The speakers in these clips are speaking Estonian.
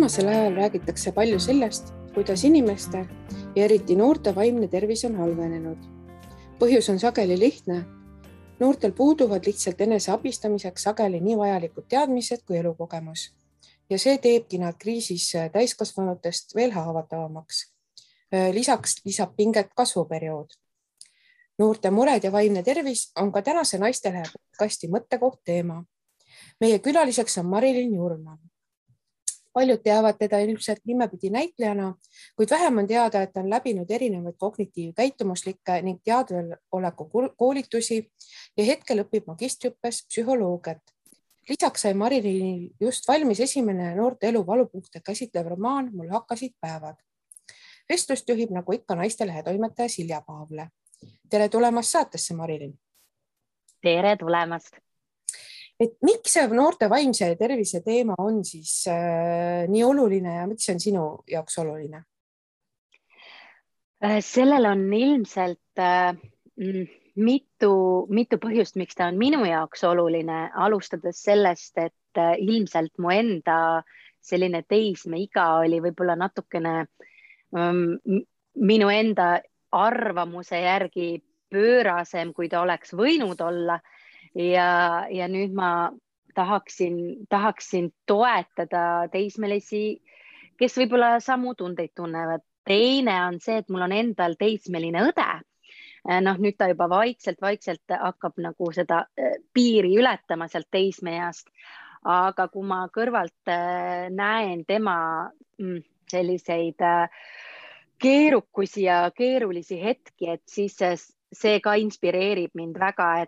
Viimasel ajal räägitakse palju sellest, kuidas inimeste ja eriti noorte vaimne tervis on halvenenud. Põhjus on sageli lihtne. Noortel puuduvad lihtsalt enese abistamiseks sageli nii vajalikud teadmised kui elukogemus. Ja see teebki nad kriisis täiskasvanutest veel haavatavamaks. Lisaks lisab pinget kasvuperiood. Noorte mured ja vaimne tervis on ka tänase Naistelehe podcasti mõttekoht teema. Meie külaliseks on Marilyn Jurman. Paljud teavad teda ilmselt nimepidi näitlejana, kuid vähem on teada, et on läbinud erinevaid kognitiivkäitumuslikke ning teadveoleku koolitusi ja hetkel õpib magistriõppes psühholoogiat. Lisaks sai Marilynil just valmis esimene noorte elu valupunkte käsitlev romaan Mul hakkasid päevad. Vestlust juhib nagu ikka Naistelehe toimetaja Silja Paavle. Tere tulemast saatesse, Marilyn. Tere tulemast. Et miks see noorte vaimse tervise teema on siis nii oluline ja miks see on sinu jaoks oluline? Sellel on ilmselt mitu põhjust, miks ta on minu jaoks oluline, alustades sellest, et ilmselt mu enda selline teismeiga oli võib-olla natukene minu enda arvamuse järgi pöörasem, kui ta oleks võinud olla. Ja nüüd ma tahaksin toetada teismelisi, kes võib-olla samu tundeid tunnevad. Teine on see, et mul on endal teismeline õde. Nüüd ta juba vaikselt hakkab nagu seda piiri ületama sealt teismeeast. Aga kui ma kõrvalt näen tema selliseid keerukusi ja keerulisi hetki, et siis see ka inspireerib mind väga,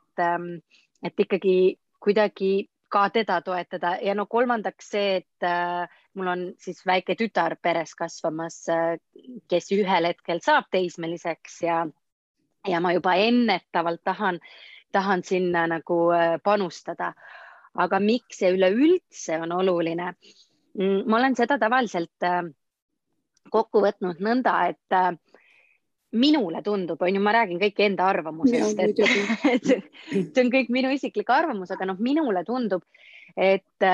et ikkagi kuidagi ka teda toetada. Ja kolmandaks see, et mul on siis väike tütar peres kasvamas, kes ühel hetkel saab teismeliseks ja ma juba ennetavalt tahan sinna nagu panustada. Aga miks see üleüldse on oluline? Ma olen seda tavaliselt kokku võtnud nõnda, et minule tundub, ma räägin kõik enda arvamusest, et see on kõik minu isiklik arvamus, aga minule tundub, et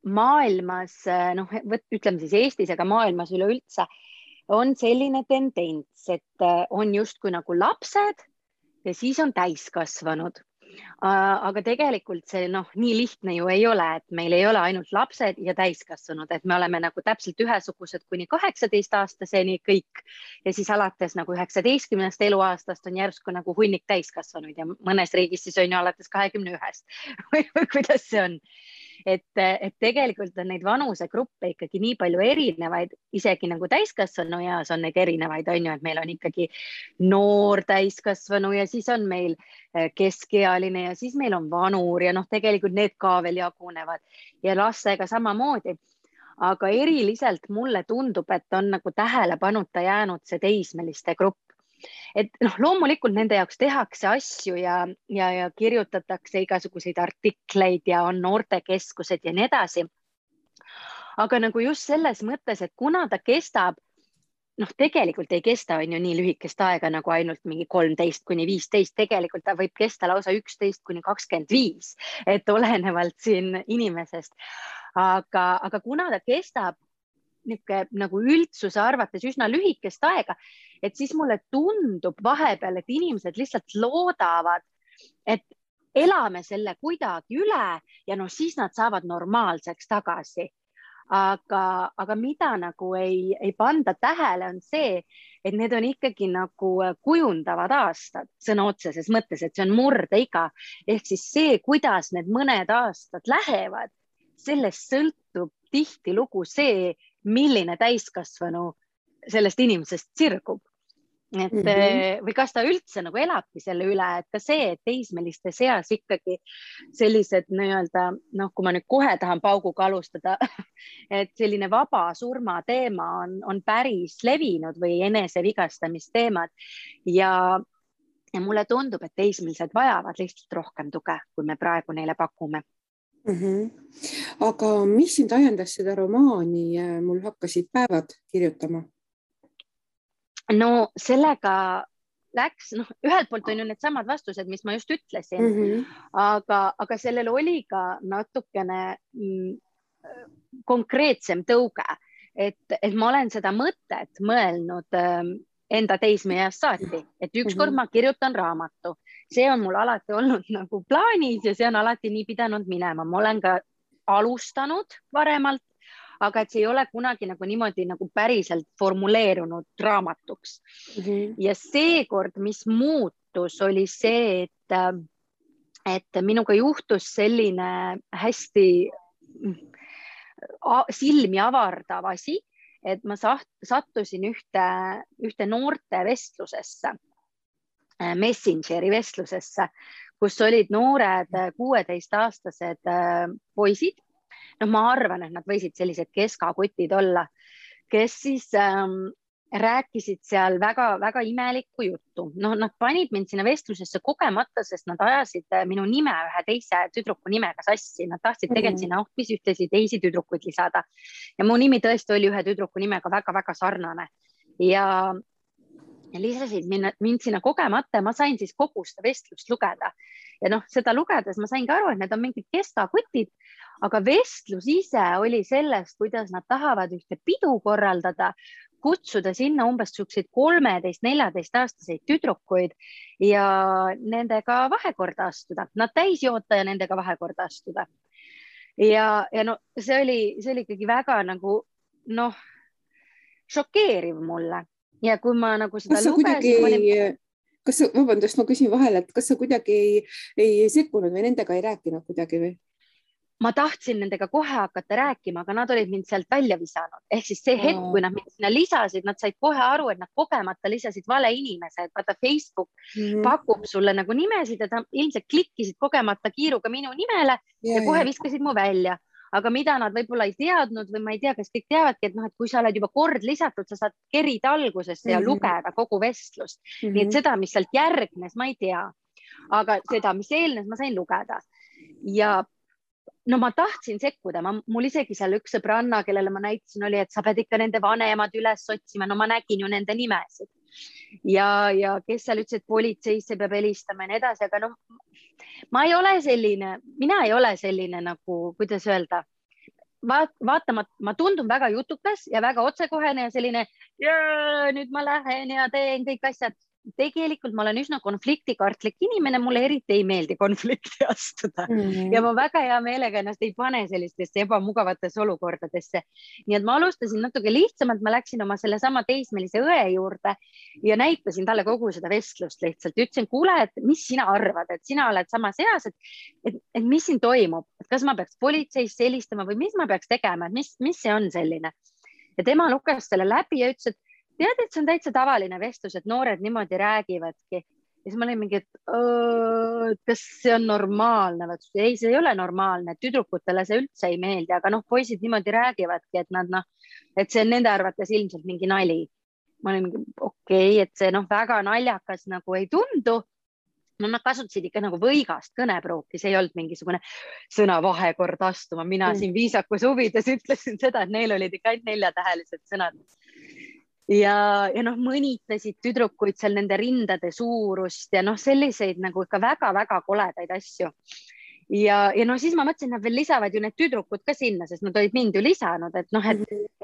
maailmas, ütleme siis Eestis, aga maailmas üleüldse on selline tendents, et on justkui nagu lapsed ja siis on täiskasvanud. Aga tegelikult see nii lihtne ju ei ole, et meil ei ole ainult lapsed ja täiskasvanud, et me oleme nagu täpselt ühesugused kuni 18-aastaseni kõik ja siis alates nagu 19. eluaastast on järsku nagu hunnik täiskasvanuid ja mõnes riigis siis on ju alates 21. või kuidas see on. Et tegelikult on neid vanusegruppe ikkagi nii palju erinevaid, isegi nagu täiskasvanu eas on neid erinevaid, et meil on ikkagi noor täiskasvanu ja siis on meil keskealine ja siis meil on vanur ja tegelikult need ka veel jagunevad ja lastega samamoodi. Aga eriliselt mulle tundub, et on nagu tähelepanuta jäänud see teismeliste grupp. Et loomulikult nende jaoks tehakse asju ja kirjutatakse igasuguseid artikleid ja on noortekeskused ja nii edasi. Aga nagu just selles mõttes, et kuna ta kestab, tegelikult ei kesta on ju nii lühikest aega nagu ainult mingi 13 kuni 15, tegelikult ta võib kesta lausa 11 kuni 25, et olenevalt siin inimesest. Aga kuna ta kestab nagu üldsuse arvates üsna lühikest aega, et siis mulle tundub vahepeal, et inimesed lihtsalt loodavad, et elame selle kuidagi üle ja siis nad saavad normaalseks tagasi. Aga mida nagu ei panda tähele on see, et need on ikkagi nagu kujundavad aastad sõna otseses mõttes, et see on murdeiga. Ehk siis see, kuidas need mõned aastad lähevad, sellest sõltub tihtilugu see, milline täiskasvanu sellest inimesest sirgub. Või kas ta üldse nagu elabki selle üle, et ka see, et teismeliste seas ikkagi sellised nii-öelda, kui ma nüüd kohe tahan pauguga alustada, et selline vaba surma teema on päris levinud või enesevigastamisteemad ja mulle tundub, et teismelised vajavad lihtsalt rohkem tuge, kui me praegu neile pakume. Aga mis sind ajendas seda romaani Mul hakkasid päevad kirjutama? Sellega läks, ühelt poolt on ju need samad vastused, mis ma just ütlesin, aga sellel oli ka natukene konkreetsem tõuge. et ma olen seda mõtet mõelnud enda teismeeast saati, et ükskord ma kirjutan raamatu. See on mul alati olnud nagu plaanis ja see on alati nii pidanud minema. Ma olen ka alustanud varemalt, aga et see ei ole kunagi nagu niimoodi nagu päriselt formuleerunud raamatuks. Ja seekord, mis muutus, oli see, et minuga juhtus selline hästi silmi avardav asi, et ma sattusin ühte noorte vestlusesse, Messengeri vestlusesse, kus olid noored 16-aastased poisid. No ma arvan, et nad võisid sellised keskakutid olla, kes siis rääkisid seal väga-väga imelikku juttu. No, nad panid mind sinna vestlusesse kogemata, sest nad ajasid minu nime ühe teise tüdruku nimega sassi. Nad tahtsid tegelikult sinna hoopis ühtesid teisi tüdrukuid lisada. Ja mu nimi tõesti oli ühe tüdruku nimega väga-väga sarnane. Ja lisasid mind sinna kogemata. Ma sain siis kogu seda vestlust lugeda. Ja noh, seda lugedes ma sain ka aru, et need on mingid keskakutid, aga vestlus ise oli sellest, kuidas nad tahavad ühte pidu korraldada, kutsuda sinna umbes 13-14-aastaseid tüdrukuid ja nendega vahekorda astuda. Nad täis joota ja nendega vahekorda astuda. Ja no, see oli ikkagi väga nagu, noh, šokeeriv mulle. Ja kui ma nagu seda lugesin... Vabandust, ma küsin vahele, et kas sa kuidagi ei sekkunud või nendega ei rääkinud kuidagi või? Ma tahtsin nendega kohe hakata rääkima, aga nad olid mind sealt välja visanud. Ehk siis see hetk, kui nad mind sinna lisasid, nad said kohe aru, et nad kogemata lisasid vale inimese, et vaata Facebook pakub sulle nagu nimesid ja ilmselt klikkisid kogemata kiiruga minu nimele ja kohe viskasid mu välja. Aga mida nad võib-olla ei teadnud või ma ei tea, kas kõik teavadki, et kui sa oled juba kord lisatud, sa saad kerida algusesse ja lugeda kogu vestlust. Nii et seda, mis sealt järgnes, ma ei tea. Aga seda, mis eelnes, ma sain lugeda. Ja no ma tahtsin sekkuda, mul isegi seal üks sõbranna, kellele ma näitasin, oli, et sa pead ikka nende vanemad üles otsima. No ma nägin ju nende nimesid. Ja kes seal ütles, et politseisse peab helistama ja nii edasi, aga noh, mina ei ole selline nagu, kuidas öelda, vaata, ma tundun väga jutukas ja väga otsekohene ja selline, nüüd ma lähen ja teen kõik asjad. Tegelikult ma olen üsna konfliktikartlik inimene, mulle eriti ei meeldi konflikti astuda ja ma väga hea meelega ennast ei pane sellistesse ebamugavatesse olukordadesse. Nii et ma alustasin natuke lihtsamalt, ma läksin oma sellesama teismelise õe juurde ja näitasin talle kogu seda vestlust lihtsalt. Ütlesin, kuule, et mis sina arvad, et sina oled samas eas, et mis siin toimub, et kas ma peaks politseisse helistama või mis ma peaks tegema, et mis see on selline. Ja tema luges selle läbi ja ütles, et tead, et see on täitsa tavaline vestlus, et noored niimoodi räägivadki. Ja siis ma olin mingi, et kas see on normaalne? Ei, see ei ole normaalne. Tüdrukutele see üldse ei meeldi, aga poisid niimoodi räägivadki, et see on nende arvates ilmselt mingi nali. Ma olin mingi, okei, et see väga naljakas nagu ei tundu. No nad kasutasid ikka nagu võigast kõnepruuki, see ei olnud mingisugune sõna vahekord astuma. Mina siin viisakus huvides ütlesin seda, et neil olid ikka ainult 4-tähelised sõnad. Ja mõnitasid tüdrukuid seal nende rindade suurust ja selliseid nagu ikka väga-väga koledaid asju. Ja siis ma mõtlesin, et nad veel lisavad ju need tüdrukud ka sinna, sest nad olid mind ju lisanud, et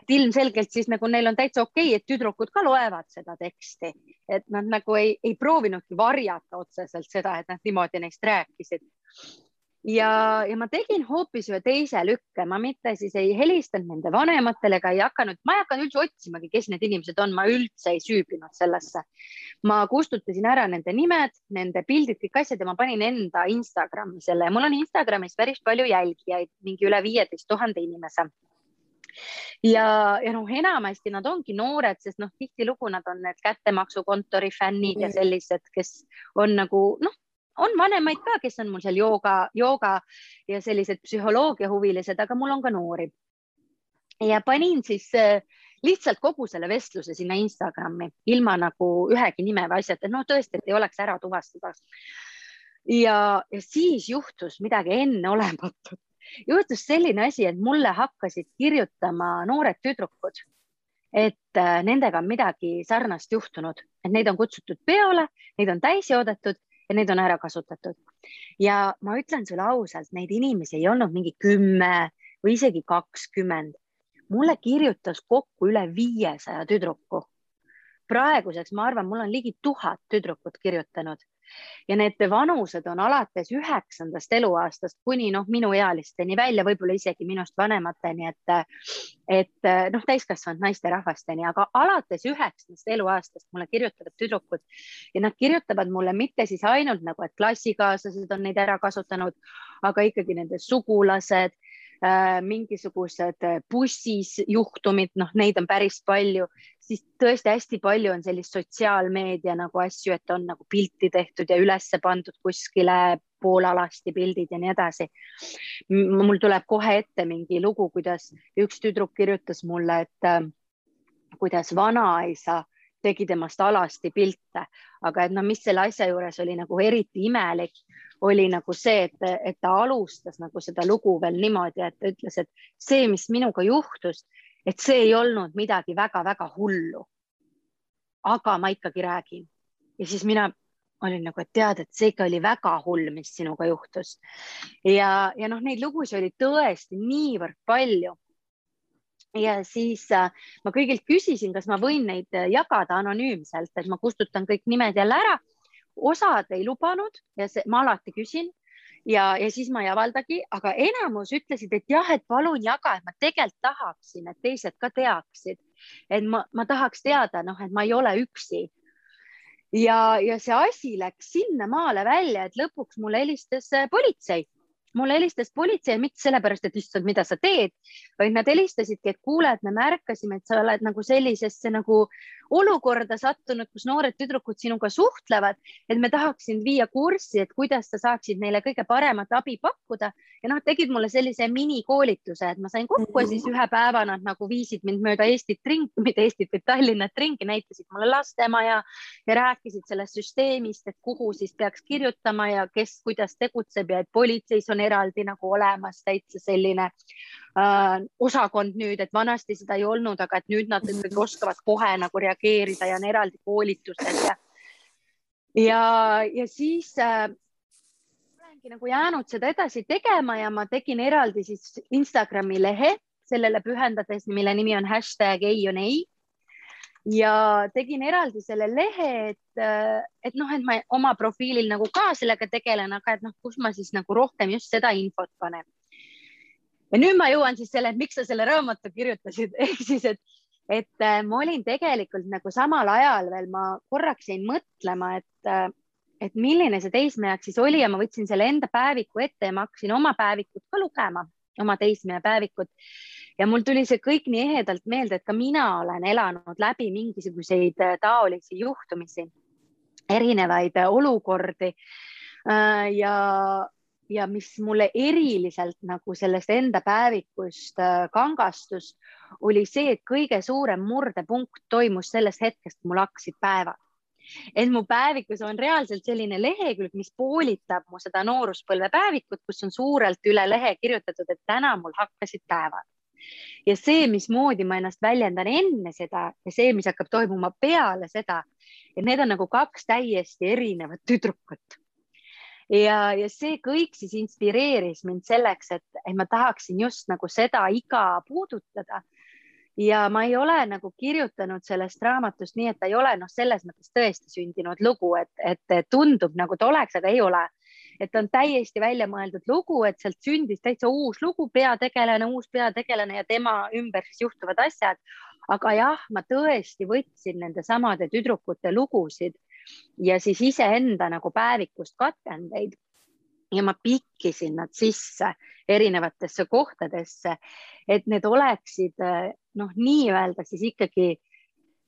ilmselgelt siis nagu neil on täitsa okei, et tüdrukud ka loevad seda teksti, et nad nagu ei proovinudki varjata otseselt seda, et nad niimoodi neist rääkisid. Ja ma tegin hoopis ühe teise lükke, ma mitte siis ei helistanud nende vanematele ega ma ei hakanud üldse otsimagi, kes need inimesed on, ma üldse ei süübinud sellesse. Ma kustutasin ära nende nimed, nende pildid, kõik asjad ja ma panin enda Instagrami selle ja mul on Instagramis päris palju jälgijaid, mingi üle 15 000 inimese. Ja enamasti nad ongi noored, sest tihtilugu nad on need kättemaksukontori fännid ja sellised, kes on nagu, on vanemaid ka, kes on mul seal jooga ja sellised psühholoogia huvilised, aga mul on ka noori. Ja panin siis lihtsalt kogu selle vestluse sinna Instagrami, ilma nagu ühegi nime või asjad, et tõesti, et ei oleks ära tuvastada. Ja siis juhtus midagi enneolematut. Juhtus selline asi, et mulle hakkasid kirjutama noored tüdrukud, et nendega on midagi sarnast juhtunud, et neid on kutsutud peole, neid on täis joodetud ja neid on ära kasutatud. Ja ma ütlen sulle ausalt, neid inimesi ei olnud mingi 10 või isegi 20. mulle kirjutas kokku üle 500 tüdruku. Praeguseks ma arvan, mul on ligi 1000 tüdrukut kirjutanud ja need vanused on alates 9. eluaastast kuni minu ealisteni välja, võib-olla isegi minust vanemateni, et täiskasvanud naisterahvasteni, aga alates 9. eluaastast mulle kirjutavad tüdrukud ja nad kirjutavad mulle mitte siis ainult nagu, et klassikaaslased on neid ära kasutanud, aga ikkagi nende sugulased, mingisugused bussis juhtumid, neid on päris palju, siis tõesti hästi palju on sellist sotsiaalmeedia nagu asju, et on nagu pilti tehtud ja ülesse pandud kuskile poolalasti pildid ja nii edasi. Mul tuleb kohe ette mingi lugu, kuidas üks tüdruk kirjutas mulle, et kuidas vanaisa tegi temast alasti pilte, aga et mis selle asja juures oli nagu eriti imelik, oli nagu see, et ta alustas nagu seda lugu veel niimoodi, et ta ütles, et see, mis minuga juhtus, et see ei olnud midagi väga-väga hullu. Aga ma ikkagi räägin. Ja siis mina olin nagu, et tead, et see ikka oli väga hull, mis sinuga juhtus. Ja neid lugusid oli tõesti niivõrd palju. Ja siis ma kõigilt küsisin, kas ma võin neid jagada anonüümselt, et ma kustutan kõik nimed jälle ära. Osad ei lubanud ja ma alati küsin ja siis ma ei avaldagi, aga enamus ütlesid, et jah, et palun jaga, et ma tegelikult tahaksin, et teised ka teaksid, et ma tahaks teada, et ma ei ole üksi. Ja see asi läks sinna maale välja, et lõpuks mulle helistas politsei. Mulle helistas politsei, mitte sellepärast, et issand, mida sa teed, vaid nad helistasidki, et kuule, et me märkasime, et sa oled nagu sellisesse nagu olukorda sattunud, kus noored tüdrukud sinuga suhtlevad, et me tahaksin viia kurssi, et kuidas sa saaksid neile kõige paremat abi pakkuda. Ja tegid mulle sellise minikoolituse, et ma sain kokku ja siis ühe päeva nad nagu viisid mind mööda Eestit ringi, mitte Eestit, vaid Tallinnat ringi, näitasid mulle lastemaja ja rääkisid sellest süsteemist, et kuhu siis peaks kirjutama ja kes kuidas tegutseb ja et politseis on eraldi nagu olemas täitsa selline osakond nüüd, et vanasti seda ei olnud, aga et nüüd nad ikkagi oskavad kohe nagu reageerida ja on eraldi koolitused ja siis olengi nagu jäänud seda edasi tegema ja ma tegin eraldi siis Instagrami lehe sellele pühendades, mille nimi on #ei-on-ei ja tegin eraldi selle lehe, et ma oma profiilil nagu ka sellega tegelen, aga et kus ma siis nagu rohkem just seda infot panen. Ja nüüd ma jõuan siis selle, et miks sa selle raamatu kirjutasid, ehk siis, et ma olin tegelikult nagu samal ajal veel, ma korraks jäin mõtlema, et milline see teismejak siis oli ja ma võtsin selle enda päeviku ette ja ma hakkasin oma päevikut ka lugema, oma teismeja päevikut. Ja mul tuli see kõik nii ehedalt meelde, et ka mina olen elanud läbi mingisuguseid taolisi juhtumisi, erinevaid olukordi ja mis mulle eriliselt nagu sellest enda päevikust kangastus, oli see, et kõige suurem murdepunkt toimus sellest hetkest, mul hakkasid päevad. Et mu päevikus on reaalselt selline lehekülg, mis poolitab mu seda nooruspõlve päevikut, kus on suurelt üle lehe kirjutatud, et täna mul hakkasid päevad. Ja see, mismoodi ma ennast väljendan enne seda ja see, mis hakkab toimuma peale seda, et need on nagu kaks täiesti erinevat tüdrukut. Ja see kõik siis inspireeris mind selleks, et ma tahaksin just nagu seda iga puudutada. Ja ma ei ole nagu kirjutanud sellest raamatust nii, et ta ei ole selles mõttes tõesti sündinud lugu, et tundub nagu ta oleks, aga ei ole. Et on täiesti välja mõeldud lugu, et sealt sündis täitsa uus lugu, uus peategelane ja tema ümber siis juhtuvad asjad. Aga jah, ma tõesti võtsin nende samade tüdrukute lugusid ja siis iseenda nagu päevikust katkendeid ja ma pikkisin nad sisse erinevatesse kohtadesse, et need oleksid nii-öelda siis ikkagi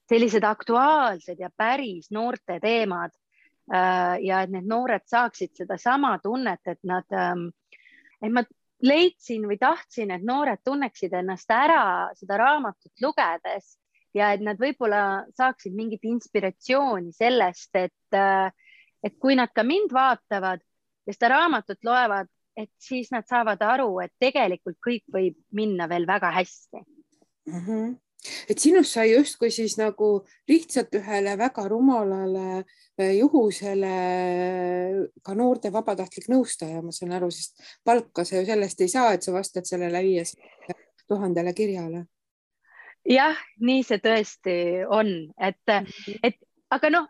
sellised aktuaalsed ja päris noorte teemad ja et need noored saaksid seda sama tunnet, et ma leidsin või tahtsin, et noored tunneksid ennast ära seda raamatut lugedes ja et nad võib-olla saaksid mingit inspiratsiooni sellest, et kui nad ka mind vaatavad ja seda raamatut loevad, et siis nad saavad aru, et tegelikult kõik võib minna veel väga hästi. Et sinust sai justkui siis nagu lihtsalt ühele väga rumalale juhusele ka noorte vabatahtlik nõustaja, ma saan aru, sest palka sa ju sellest ei saa, et sa vastad sellele 500 000 kirjale. jah, nii see tõesti on, et aga noh,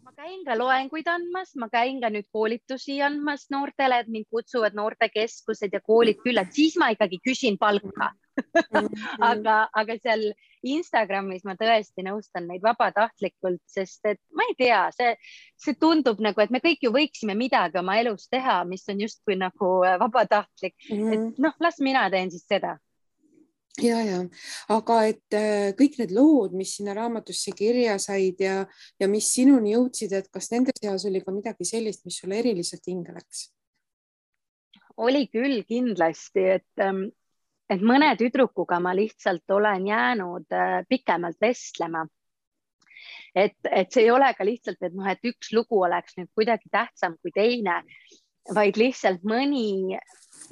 ma käin ka loenguid andmas, ma käin ka nüüd koolitusi andmas noortele, et mind kutsuvad noortekeskused ja koolid külla, et siis ma ikkagi küsin palka. aga seal Instagramis ma tõesti nõustan neid vabatahtlikult, sest et ma ei tea, see tundub nagu, et me kõik ju võiksime midagi oma elus teha, mis on justkui nagu vabatahtlik, et noh, las mina teen siis seda. Ja, aga et kõik need lood, mis sinna raamatusse kirja said ja mis sinuni jõudsid, et kas nende seas oli ka midagi sellist, mis sulle eriliselt hinge läks? Oli küll kindlasti, et mõne tüdrukuga ma lihtsalt olen jäänud pikemalt vestlema. Et see ei ole ka lihtsalt, et üks lugu oleks nüüd kuidagi tähtsam kui teine, vaid lihtsalt mõni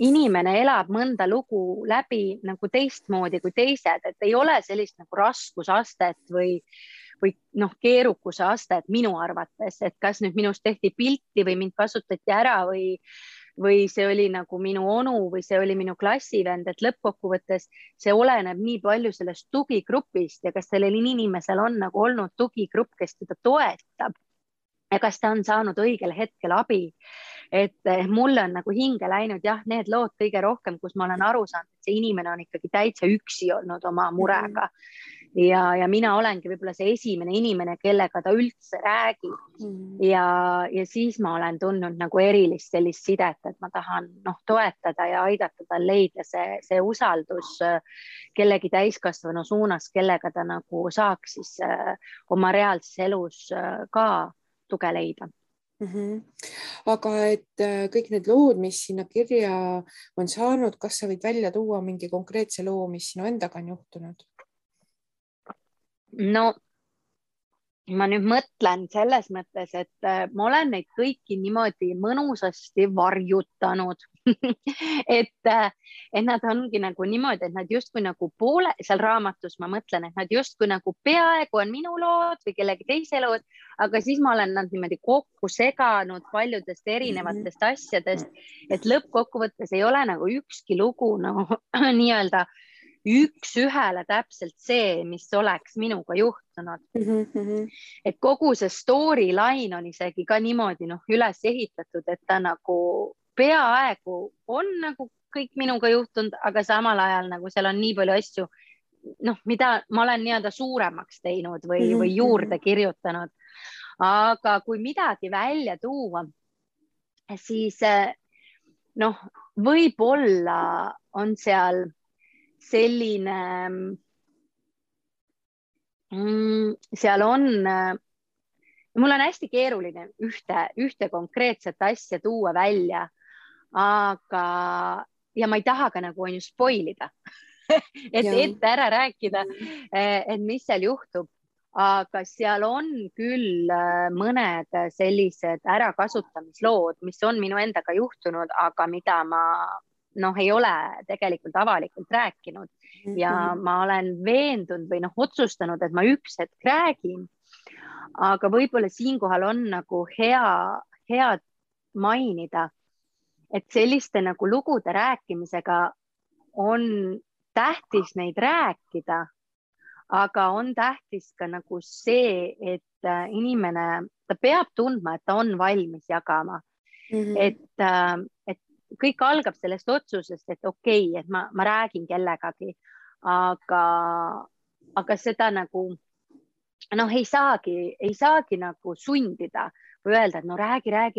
inimene elab mõnda lugu läbi nagu teistmoodi kui teised, et ei ole sellist nagu raskusastet või keerukuse astet minu arvates, et kas nüüd minust tehti pilti või mind kasutati ära või see oli nagu minu onu või see oli minu klassivend, et lõppkokkuvõttes see oleneb nii palju sellest tugigrupist ja kas sellel inimesel on nagu olnud tugigrupp, kes teda toetab ja kas ta on saanud õigel hetkel abi. Et mulle on nagu hinge läinud jah, need lood kõige rohkem, kus ma olen aru saanud, et see inimene on ikkagi täitsa üksi olnud oma murega. Ja mina olengi võib-olla see esimene inimene, kellega ta üldse räägib. Ja siis ma olen tundnud nagu erilist sellist sidet, et ma tahan toetada ja aidata tal leida see usaldus kellegi täiskasvanu suunas, kellega ta nagu saaks siis oma reaalses elus ka tuge leida. Aga et kõik need lood, mis sinna kirja on saanud, kas sa võid välja tuua mingi konkreetse loo, mis sinu endaga on juhtunud? No ma nüüd mõtlen selles mõttes, et ma olen neid kõiki niimoodi mõnusasti varjutanud et nad ongi nagu niimoodi, et nad justkui nagu poole seal raamatus, ma mõtlen, et nad justkui nagu peaaegu on minu lood või kellegi teise lood, aga siis ma olen nad niimoodi kokku seganud paljudest erinevatest asjadest, et lõppkokkuvõttes ei ole nagu ükski lugu nii-öelda üks-ühele täpselt see, mis oleks minuga juhtunud. Et kogu see storyline on isegi ka niimoodi üles ehitatud, et ta nagu peaaegu on nagu kõik minuga juhtunud, aga samal ajal nagu seal on nii palju asju, mida ma olen nii-öelda suuremaks teinud või juurde kirjutanud. Aga kui midagi välja tuua, siis võib-olla on seal selline, seal on, mul on hästi keeruline ühte konkreetset asja tuua välja, ja ma ei taha ka nagu spoilida, ette ära rääkida, et mis seal juhtub, aga seal on küll mõned sellised ärakasutamislood, mis on minu endaga juhtunud, aga mida ma ei ole tegelikult avalikult rääkinud ja ma olen veendunud või otsustanud, et ma üks hetk räägin, aga võib-olla siinkohal on nagu hea mainida, et selliste nagu lugude rääkimisega on tähtis neid rääkida, aga on tähtis ka nagu see, et inimene, ta peab tundma, et ta on valmis jagama, et kõik algab sellest otsusest, et okei, et ma räägin kellegagi, aga seda nagu ei saagi nagu sundida või öelda, et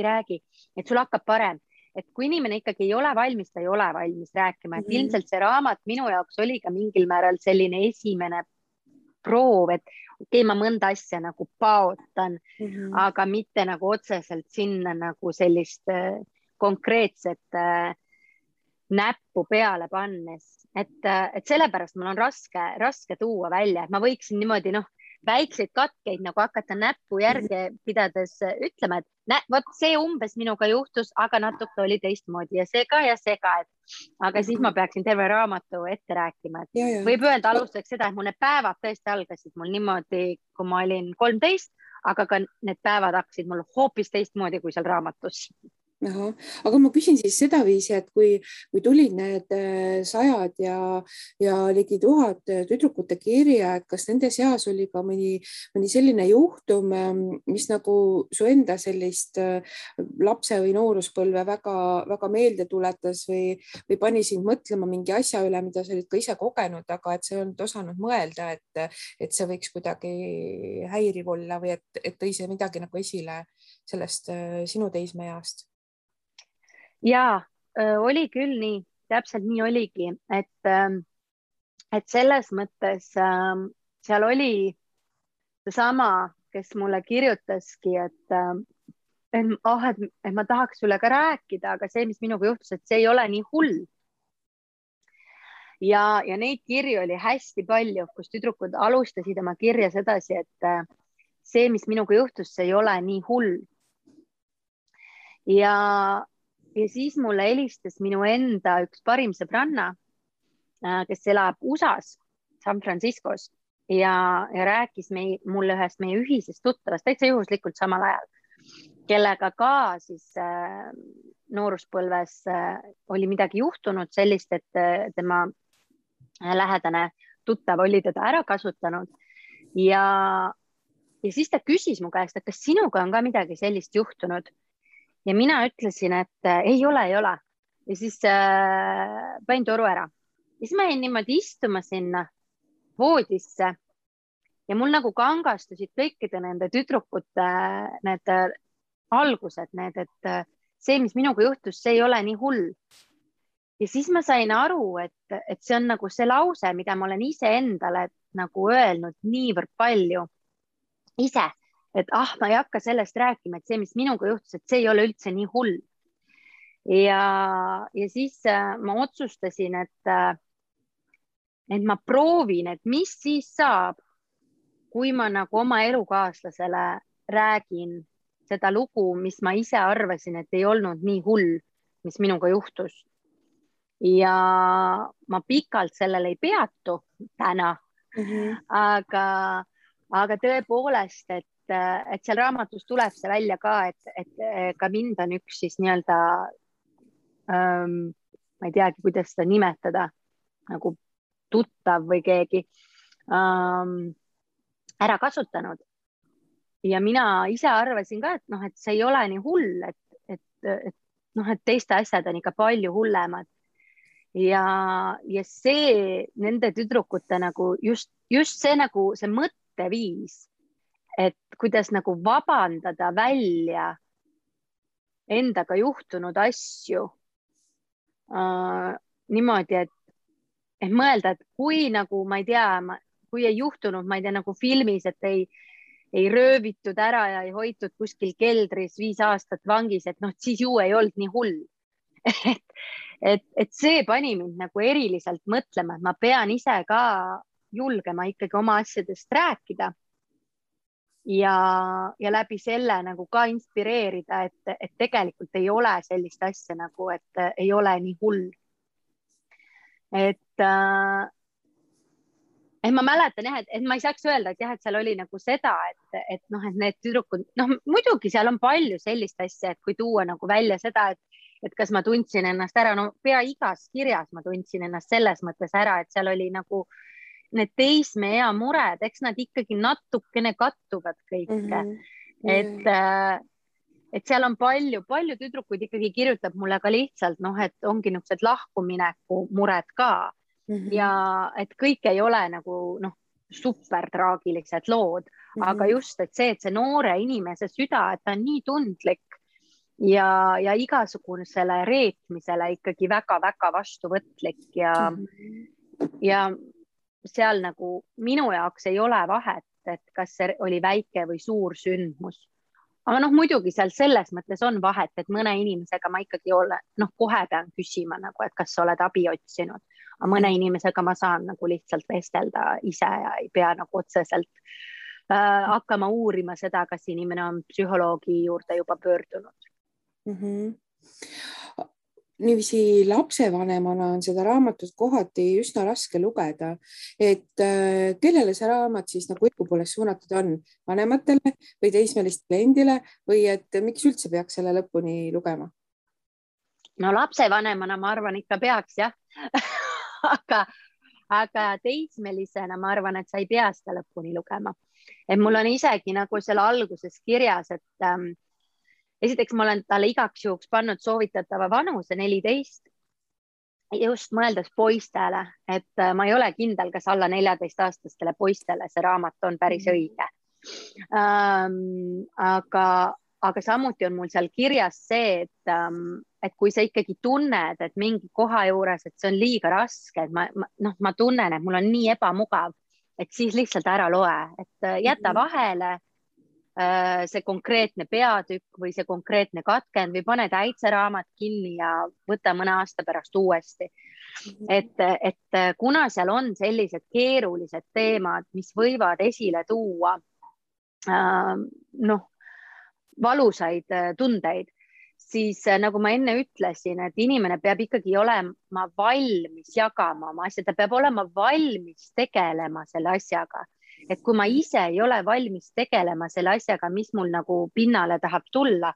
räägi, et sul hakkab parem. Et kui inimene ikkagi ei ole valmis, ta ei ole valmis rääkima, et ilmselt see raamat minu jaoks oli ka mingil määral selline esimene proov, et okei, ma mõnda asja nagu paotan, aga mitte nagu otseselt sinna nagu sellist konkreetset näppu peale pannes, et sellepärast mul on raske tuua välja, et ma võiksin niimoodi väikseid katkeid nagu hakata näppu järge pidades ütlema, et vot see umbes minuga juhtus, aga natuke oli teistmoodi ja see ka, aga siis ma peaksin terve raamatu ette rääkima, et võib öelda alustuseks seda, et mul need päevad tõesti algasid mul niimoodi, kui ma olin 13, aga ka need päevad hakkasid mul hoopis teistmoodi kui seal raamatus. Ahah. Aga ma küsin siis sedaviisi, et kui tulid need sajad ja ligi 1000 tüdrukute kirja, et kas nende seas oli ka mõni selline juhtum, mis nagu su enda sellist lapse või nooruspõlve väga meelde tuletas või pani sind mõtlema mingi asja üle, mida sa olid ka ise kogenud, aga et sa ei olnud osanud mõelda, et see võiks kuidagi häiriv olla või et tõi see midagi nagu esile sellest sinu teismeeast? Ja oli küll nii, täpselt nii oligi, et selles mõttes seal oli seesama, kes mulle kirjutaski, et ma tahaks sulle ka rääkida, aga see, mis minuga juhtus, et see ei ole nii hull. Ja neid kirju oli hästi palju, kus tüdrukud alustasid oma kirja sedasi, et see, mis minuga juhtus, see ei ole nii hull. Ja siis mulle helistas minu enda üks parim sõbranna, kes elab USA-s, San Franciscos ja rääkis mulle ühest meie ühisest tuttavast täitsa juhuslikult samal ajal, kellega ka siis nooruspõlves oli midagi juhtunud sellist, et tema lähedane tuttav oli teda ära kasutanud ja siis ta küsis mu käest, et kas sinuga on ka midagi sellist juhtunud. Ja mina ütlesin, et ei ole. Ja siis panin toru ära. Ja siis ma jäin niimoodi istuma sinna voodisse ja mul nagu kangastusid kõikide nende tüdrukute need algused, et see, mis minuga juhtus, see ei ole nii hull. Ja siis ma sain aru, et see on nagu see lause, mida ma olen ise endale nagu öelnud niivõrd palju ise. Et ma ei hakka sellest rääkima, et see, mis minuga juhtus, et see ei ole üldse nii hull. Ja siis ma otsustasin, et ma proovin, et mis siis saab, kui ma nagu oma elukaaslasele räägin seda lugu, mis ma ise arvasin, et ei olnud nii hull, mis minuga juhtus. Ja ma pikalt sellele ei peatu täna, aga tõepoolest, et seal raamatus tuleb see välja ka, et ka mind on üks siis nii-öelda, ma ei teagi, kuidas seda nimetada, nagu tuttav või keegi ära kasutanud. Ja mina ise arvasin ka, et see ei ole nii hull, et teiste asjad on ikka palju hullemad. Ja see nende tüdrukute nagu just see nagu see mõtteviis, et kuidas nagu vabandada välja endaga juhtunud asju niimoodi, et mõelda, et kui nagu, ma ei tea, kui ei juhtunud, ma ei tea, nagu filmis, et ei röövitud ära ja ei hoitud kuskil keldris 5 aastat vangis, et siis ju ei olnud nii hull. et see pani mind nagu eriliselt mõtlema, et ma pean ise ka julgema ikkagi oma asjadest rääkida. Ja läbi selle nagu ka inspireerida, et tegelikult ei ole sellist asja nagu, et ei ole nii hull. Et ma mäletan jah, et ma ei saaks öelda, et jah, et seal oli nagu seda, et need tüdrukud, muidugi seal on palju sellist asja, et kui tuua nagu välja seda, et kas ma tundsin ennast ära, pea igas kirjas ma tundsin ennast selles mõttes ära, et seal oli nagu need teismeea mured, eks nad ikkagi natukene kattuvad kõike. Et seal on palju tüdrukuid ikkagi kirjutab mulle ka lihtsalt, et ongi niisugused lahkumineku mured ka. Ja et kõik ei ole nagu super traagilised lood, aga just, et see noore inimese süda, et ta on nii tundlik ja igasugusele reetmisele ikkagi väga-väga vastuvõtlik ja seal nagu minu jaoks ei ole vahet, et kas see oli väike või suur sündmus. Aga muidugi seal selles mõttes on vahet, et mõne inimesega ma ikkagi kohe pean küsima, et kas sa oled abi otsinud. Aga mõne inimesega ma saan nagu lihtsalt vestelda ise ja ei pea nagu otseselt hakkama uurima seda, kas inimene on psühholoogi juurde juba pöördunud. Niiviisi lapsevanemana on seda raamatut kohati üsna raske lugeda, et kellele see raamat siis nagu õigupoolest suunatud on, vanematele või teismelistele endile või et miks üldse peaks selle lõpuni lugema? no lapsevanemana ma arvan, ikka peaks jah aga teismelisena ma arvan, et sa ei pea seda lõpuni lugema. Et mul on isegi nagu selle alguses kirjas, et esiteks ma olen talle igaks juhuks pannud soovitatava vanuse 14, just mõeldes poistele, et ma ei ole kindel, kas alla 14-aastastele poistele see raamat on päris õige. Aga samuti on mul seal kirjas see, et kui sa ikkagi tunned, et mingi koha juures, et see on liiga raske, et ma tunnen, et mul on nii ebamugav, et siis lihtsalt ära loe, et jäta vahele see konkreetne peatükk või see konkreetne katkend või pane täitseraamat kinni ja võta mõne aasta pärast uuesti. Et kuna seal on sellised keerulised teemad, mis võivad esile tuua valusaid tundeid, siis nagu ma enne ütlesin, et inimene peab ikkagi olema valmis jagama oma asja, ta peab olema valmis tegelema selle asjaga. Et kui ma ise ei ole valmis tegelema selle asjaga, mis mul nagu pinnale tahab tulla,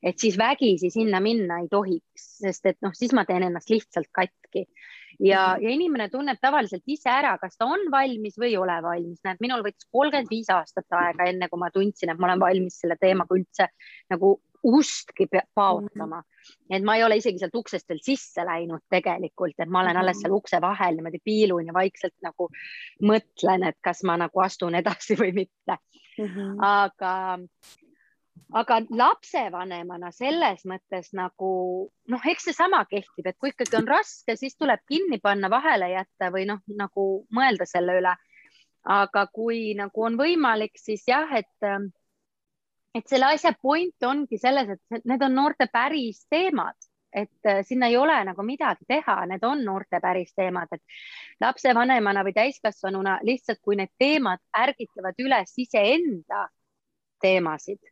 et siis vägisi sinna minna ei tohiks, sest et siis ma teen ennast lihtsalt katki. Ja inimene tunneb tavaliselt ise ära, kas ta on valmis või ei ole valmis. Näed, minul võttis 35 aastat aega enne, kui ma tundsin, et ma olen valmis selle teemaga üldse nagu ustki paotama. Et ma ei ole isegi sealt uksest veel sisse läinud tegelikult, et ma olen alles seal ukse vahel niimoodi piilun ja vaikselt nagu mõtlen, et kas ma nagu astun edasi või mitte. Aga lapsevanemana selles mõttes nagu, eks see sama kehtib, et kui ikkagi on raske, siis tuleb kinni panna, vahele jätta või nagu mõelda selle üle. Aga kui nagu on võimalik, siis jah, et selle asja point ongi selles, et need on noorte päris teemad, et sinna ei ole nagu midagi teha, need on noorte päris teemad, et lapsevanemana või täiskasvanuna lihtsalt, kui need teemad ärgitavad üles iseenda teemasid,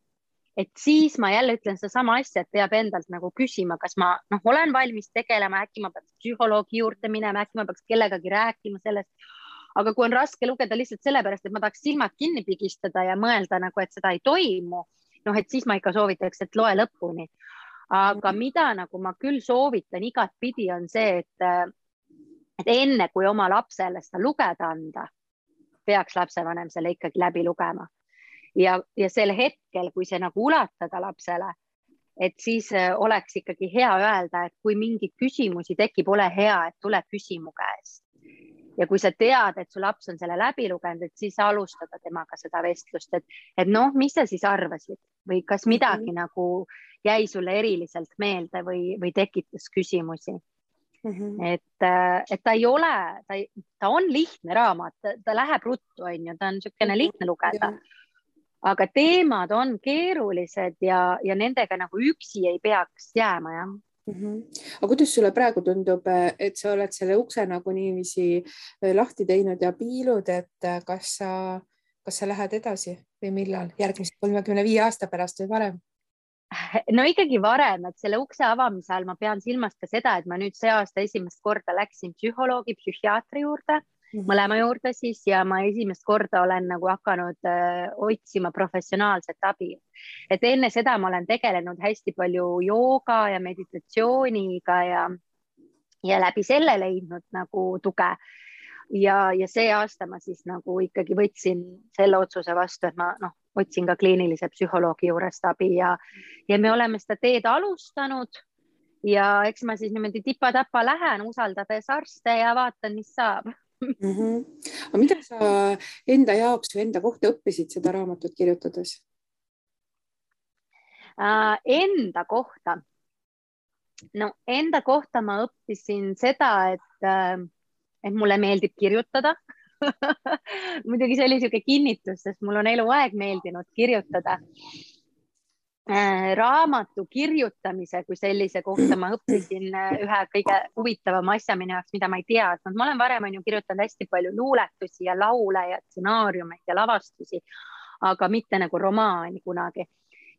et siis ma jälle ütlen seda sama asja, et peab endalt nagu küsima, kas ma olen valmis tegelema, äkki ma peaks psühholoogi juurde minema, äkki ma peaks kellegagi rääkima sellest. Aga kui on raske lugeda lihtsalt sellepärast, et ma tahaks silmad kinni pigistada ja mõelda nagu, et seda ei toimu, et siis ma ikka soovitaks, et loe lõpuni. Aga mida nagu ma küll soovitan igat pidi on see, et enne kui oma lapsele seda lugeda anda, peaks lapsevanem selle ikkagi läbi lugema. Ja sel hetkel, kui see nagu ulatada lapsele, et siis oleks ikkagi hea öelda, et kui mingid küsimusi tekib, ole hea, et tule küsimu käest. Ja kui sa tead, et su laps on selle läbi lugenud, et siis alustada temaga seda vestlust, et mis sa siis arvasid või kas midagi nagu jäi sulle eriliselt meelde või tekitas küsimusi. Et ta ei ole, ta on lihtne raamat, ta läheb ruttu, ta on niisugune lihtne lugeda. Aga teemad on keerulised ja nendega nagu üksi ei peaks jääma, jah. Aga kuidas sulle praegu tundub, et sa oled selle ukse nagu niiviisi lahti teinud ja piilud, et kas sa lähed edasi või millal? Järgmise 35 aasta pärast või varem? No ikkagi varem, et selle ukse avamise all ma pean silmas ka seda, et ma nüüd see aasta esimest korda läksin psühholoogi, psühhiaatri juurde, mõlema juurde siis, ja ma esimest korda olen nagu hakanud otsima professionaalset abi. Et enne seda ma olen tegelenud hästi palju jooga ja meditatsiooniga ja läbi selle leidnud nagu tuge. Ja see aasta ma siis nagu ikkagi võtsin selle otsuse vastu, et ma otsin ka kliinilise psühholoogi juurest abi ja me oleme seda teed alustanud ja eks ma siis niimoodi tipa-tapa lähen, usaldades arste ja vaatan, mis saab. Aga mida sa enda jaoks või enda kohta õppisid seda raamatut kirjutades? Enda kohta? Enda kohta ma õppisin seda, et mulle meeldib kirjutada. Muidugi see oli niisugune kinnitus, sest mul on eluaeg meeldinud kirjutada. Raamatu kirjutamise kui sellise kohta ma õppisin ühe kõige huvitavama asja minu jaoks, mida ma ei teadnud. Ma olen varem kirjutanud hästi palju luuletusi ja laule ja stsenaariumeid ja lavastusi, aga mitte nagu romaani kunagi.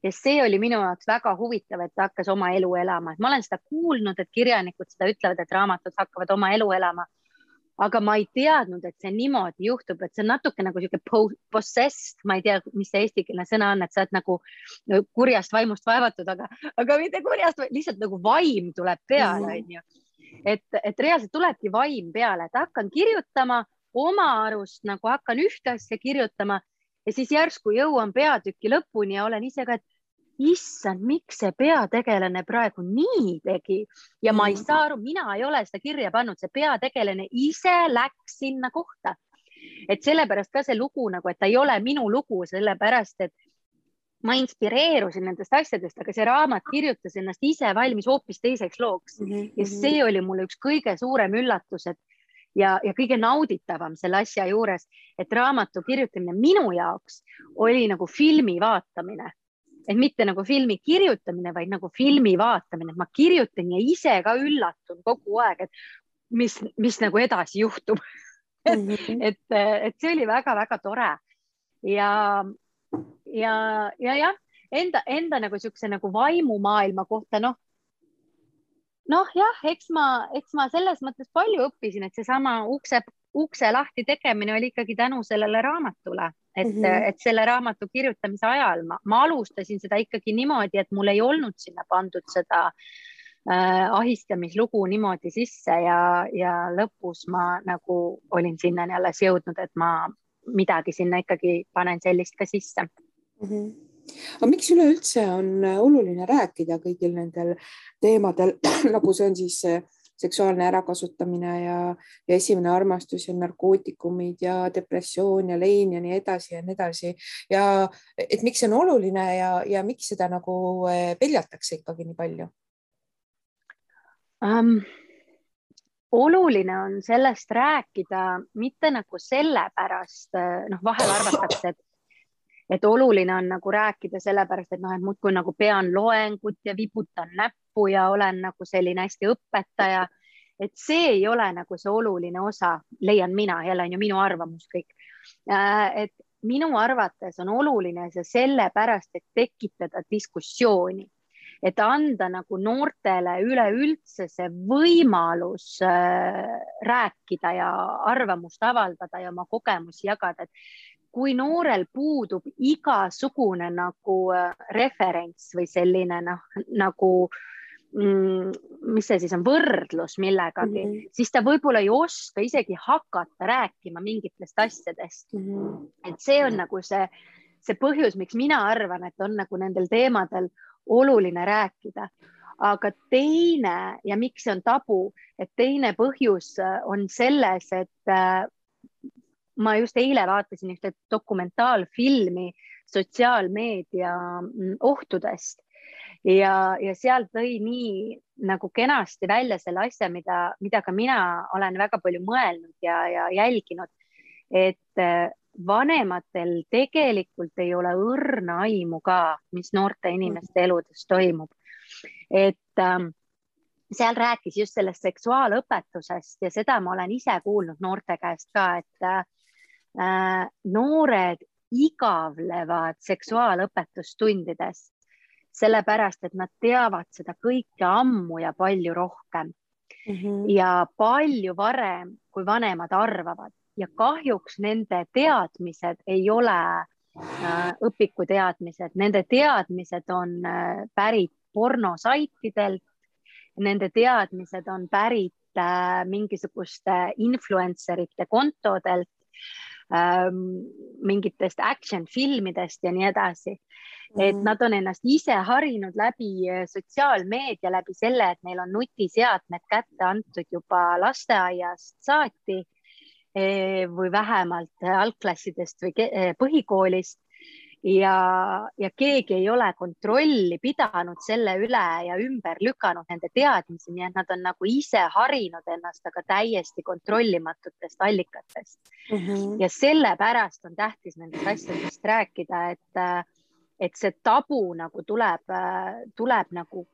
Ja see oli minu jaoks väga huvitav, et ta hakkas oma elu elama. Ma olen seda kuulnud, et kirjanikud seda ütlevad, et raamatud hakkavad oma elu elama. aga ma ei teadnud, et see niimoodi juhtub, et see on natuke nagu siuke possessed, ma ei tea, mis see eestikeelne sõna on, et sa oled nagu kurjast vaimust vaevatud, aga mitte kurjast, lihtsalt nagu vaim tuleb peale, on ju. Et reaalselt tulebki vaim peale, et hakkan kirjutama oma arust, nagu hakkan ühte asja kirjutama ja siis järsku jõuan peatüki lõpuni ja olen ise ka, et issand, miks see peategelane praegu nii tegi ja ma ei saa aru, mina ei ole seda kirja pannud, see peategelane ise läks sinna kohta. Et sellepärast ka see lugu nagu, et ta ei ole minu lugu, sellepärast, et ma inspireerusin nendest asjadest, aga see raamat kirjutas ennast ise valmis hoopis teiseks looks. Ja see oli mulle üks kõige suurem üllatus, ja kõige nauditavam selle asja juures, et raamatu kirjutamine minu jaoks oli nagu filmi vaatamine. Et mitte nagu filmi kirjutamine, vaid nagu filmi vaatamine. Ma kirjutan ja ise ka üllatun kogu aeg, et mis nagu edasi juhtub. et see oli väga-väga tore. Ja enda nagu siukse nagu vaimumaailma kohta, jah, eks ma selles mõttes palju õppisin, et see sama ukse lahti tegemine oli ikkagi tänu sellele raamatule, et selle raamatu kirjutamise ajal ma alustasin seda ikkagi niimoodi, et mul ei olnud sinna pandud seda ahistamislugu niimoodi sisse ja lõpus ma nagu olin sinna alles jõudnud, et ma midagi sinna ikkagi panen sellist ka sisse. Aga miks üleüldse on oluline rääkida kõigil nendel teemadel, nagu see on siis seksuaalne ärakasutamine ja esimene armastus ja narkootikumid ja depressioon ja lein ja nii edasi ja nii edasi. Ja et miks see on oluline ja miks seda nagu peljatakse ikkagi nii palju? Oluline on sellest rääkida mitte nagu sellepärast, vahel arvatakse, et oluline on nagu rääkida sellepärast, et muudkui nagu pean loengut ja vibutan näppu ja olen nagu selline hästi õpetaja, et see ei ole nagu see oluline osa, leian mina, jälle on ju minu arvamus kõik. Et minu arvates on oluline see sellepärast, et tekitada diskussiooni, et anda nagu noortele üleüldse see võimalus rääkida ja arvamust avaldada ja oma kogemusi jagada, et kui noorel puudub igasugune nagu referents või selline nagu, mis see siis on, võrdlus millegagi, siis ta võib-olla ei oska isegi hakata rääkima mingitest asjadest. Et see on nagu see põhjus, miks mina arvan, et on nagu nendel teemadel oluline rääkida. Aga teine ja miks see on tabu, et teine põhjus on selles, et ma just eile vaatasin ühte dokumentaalfilmi sotsiaalmeedia ohtudest ja seal tõi nii nagu kenasti välja selle asja, mida ka mina olen väga palju mõelnud ja jälginud, et vanematel tegelikult ei ole õrna aimu ka, mis noorte inimeste eludes toimub. Et seal rääkis just sellest seksuaalõpetusest ja seda ma olen ise kuulnud noorte käest ka, et noored igavlevad seksuaalõpetustundides, sellepärast, et nad teavad seda kõike ammu ja palju rohkem ja palju varem, kui vanemad arvavad. Ja kahjuks nende teadmised ei ole õpikuteadmised, nende teadmised on pärit pornosaitidelt, nende teadmised on pärit mingisuguste influencerite kontodelt, mingitest action filmidest ja nii edasi. Et nad on ennast ise harinud läbi sotsiaalmeedia, läbi selle, et neil on nutiseadmed kätte antud juba lasteaiast saati või vähemalt algklassidest või põhikoolist ja keegi ei ole kontrolli pidanud selle üle ja ümber lükanud nende teadmisi, nii et nad on nagu ise harinud ennast, aga täiesti kontrollimatutest allikatest. Ja sellepärast on tähtis nendest asjadest rääkida, et see tabu nagu tuleb nagu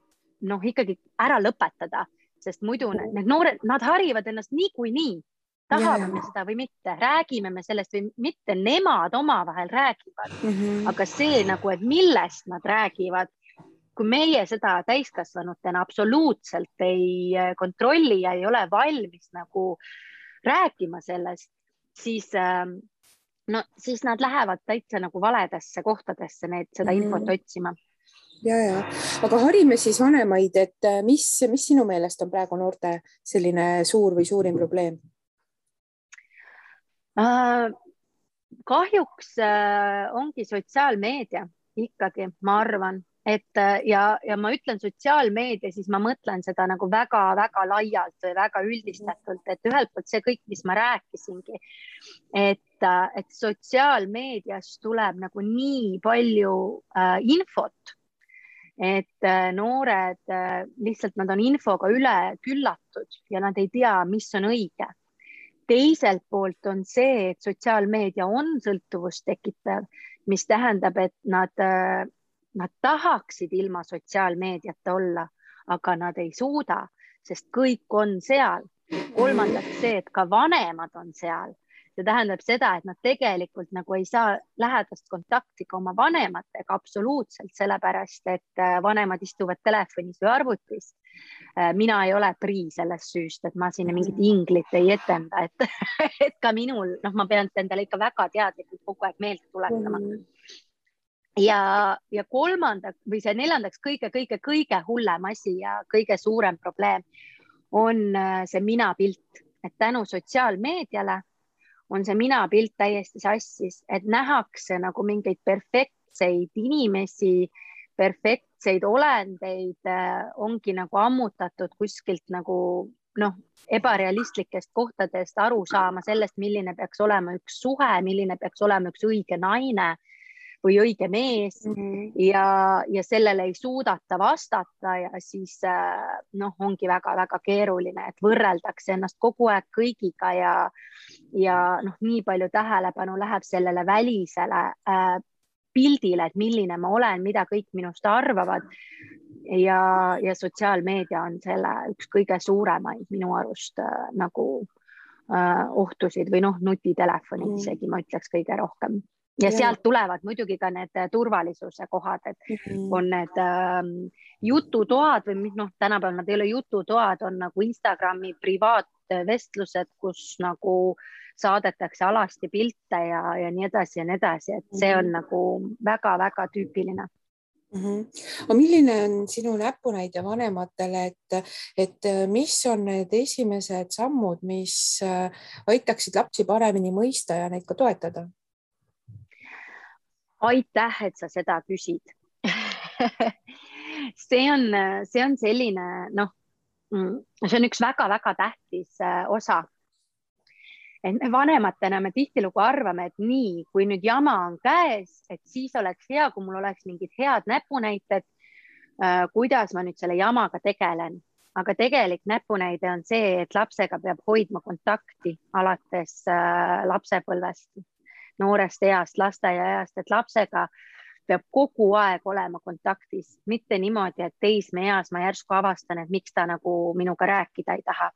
ikkagi ära lõpetada, sest muidu need noored, nad harivad ennast niikuinii. Tahame me seda või mitte, räägime me sellest või mitte, nemad omavahel räägivad, aga see nagu, et millest nad räägivad, kui meie seda täiskasvanutena absoluutselt ei kontrolli ja ei ole valmis nagu rääkima sellest, siis siis nad lähevad täitsa nagu valedesse kohtadesse seda infot otsima. Ja. Aga harime siis vanemaid, et mis sinu meelest on praegu noorte selline suur või suurim probleem? Kahjuks ongi sotsiaalmeedia ikkagi, ma arvan, et ja ma ütlen sotsiaalmeedia, siis ma mõtlen seda nagu väga-väga laialt või väga üldistatult, et ühelt poolt see kõik, mis ma rääkisingi, et sotsiaalmeedias tuleb nagu nii palju infot, et noored lihtsalt nad on infoga üle küllatud ja nad ei tea, mis on õige. Teiselt poolt on see, et sotsiaalmeedia on sõltuvust tekitav, mis tähendab, et nad tahaksid ilma sotsiaalmeediata olla, aga nad ei suuda, sest kõik on seal. Kolmandaks see, et ka vanemad on seal. See tähendab seda, et nad tegelikult nagu ei saa lähedast kontakti ka oma vanematega absoluutselt, sellepärast, et vanemad istuvad telefonis või arvutis. Mina ei ole prii sellest süüst, et ma sinna mingit inglit ei etenda, et ka minul, ma pean endale ikka väga teadlikult kogu aeg meelde tuletama. Ja kolmandaks või see neljandaks kõige hullem asi ja kõige suurem probleem on see minapilt, et tänu sotsiaalmeediale on see minapilt täiesti sassis, et nähakse nagu mingeid perfektseid inimesi, perfektseid olendeid ongi nagu ammutatud kuskilt nagu ebarealistlikest kohtadest aru saama sellest, milline peaks olema üks suhe, milline peaks olema üks õige naine või õige mees ja sellele ei suudata vastata ja siis ongi väga-väga keeruline, et võrreldakse ennast kogu aeg kõigiga ja nii palju tähelepanu läheb sellele välisele pildile, et milline ma olen, mida kõik minust arvavad ja sotsiaalmeedia on selle üks kõige suuremaid minu arust nagu ohtusid või nutitelefonid isegi ma ütleks kõige rohkem. Ja sealt tulevad muidugi ka need turvalisuse kohad, et on need jututoad või tänapäeval nad ei ole jututoad, on nagu Instagrami privaatvestlused, kus nagu saadetakse alasti pilte ja nii edasi, et see on nagu väga-väga tüüpiline. Milline on sinu näpunäide vanematele, et mis on need esimesed sammud, mis aitaksid lapsi paremini mõista ja neid ka toetada? Aitäh, et sa seda küsid. See on selline, see on üks väga-väga tähtis osa. Et me vanematena me tihtilugu arvame, et nii, kui nüüd jama on käes, et siis oleks hea, kui mul oleks mingid head näpunäited, kuidas ma nüüd selle jamaga tegelen. Aga tegelik näpunäide on see, et lapsega peab hoidma kontakti alates lapsepõlvest. Noorest east, lasteaia east, et lapsega peab kogu aeg olema kontaktis, mitte niimoodi, et teismeeas ma järsku avastan, et miks ta nagu minuga rääkida ei taha.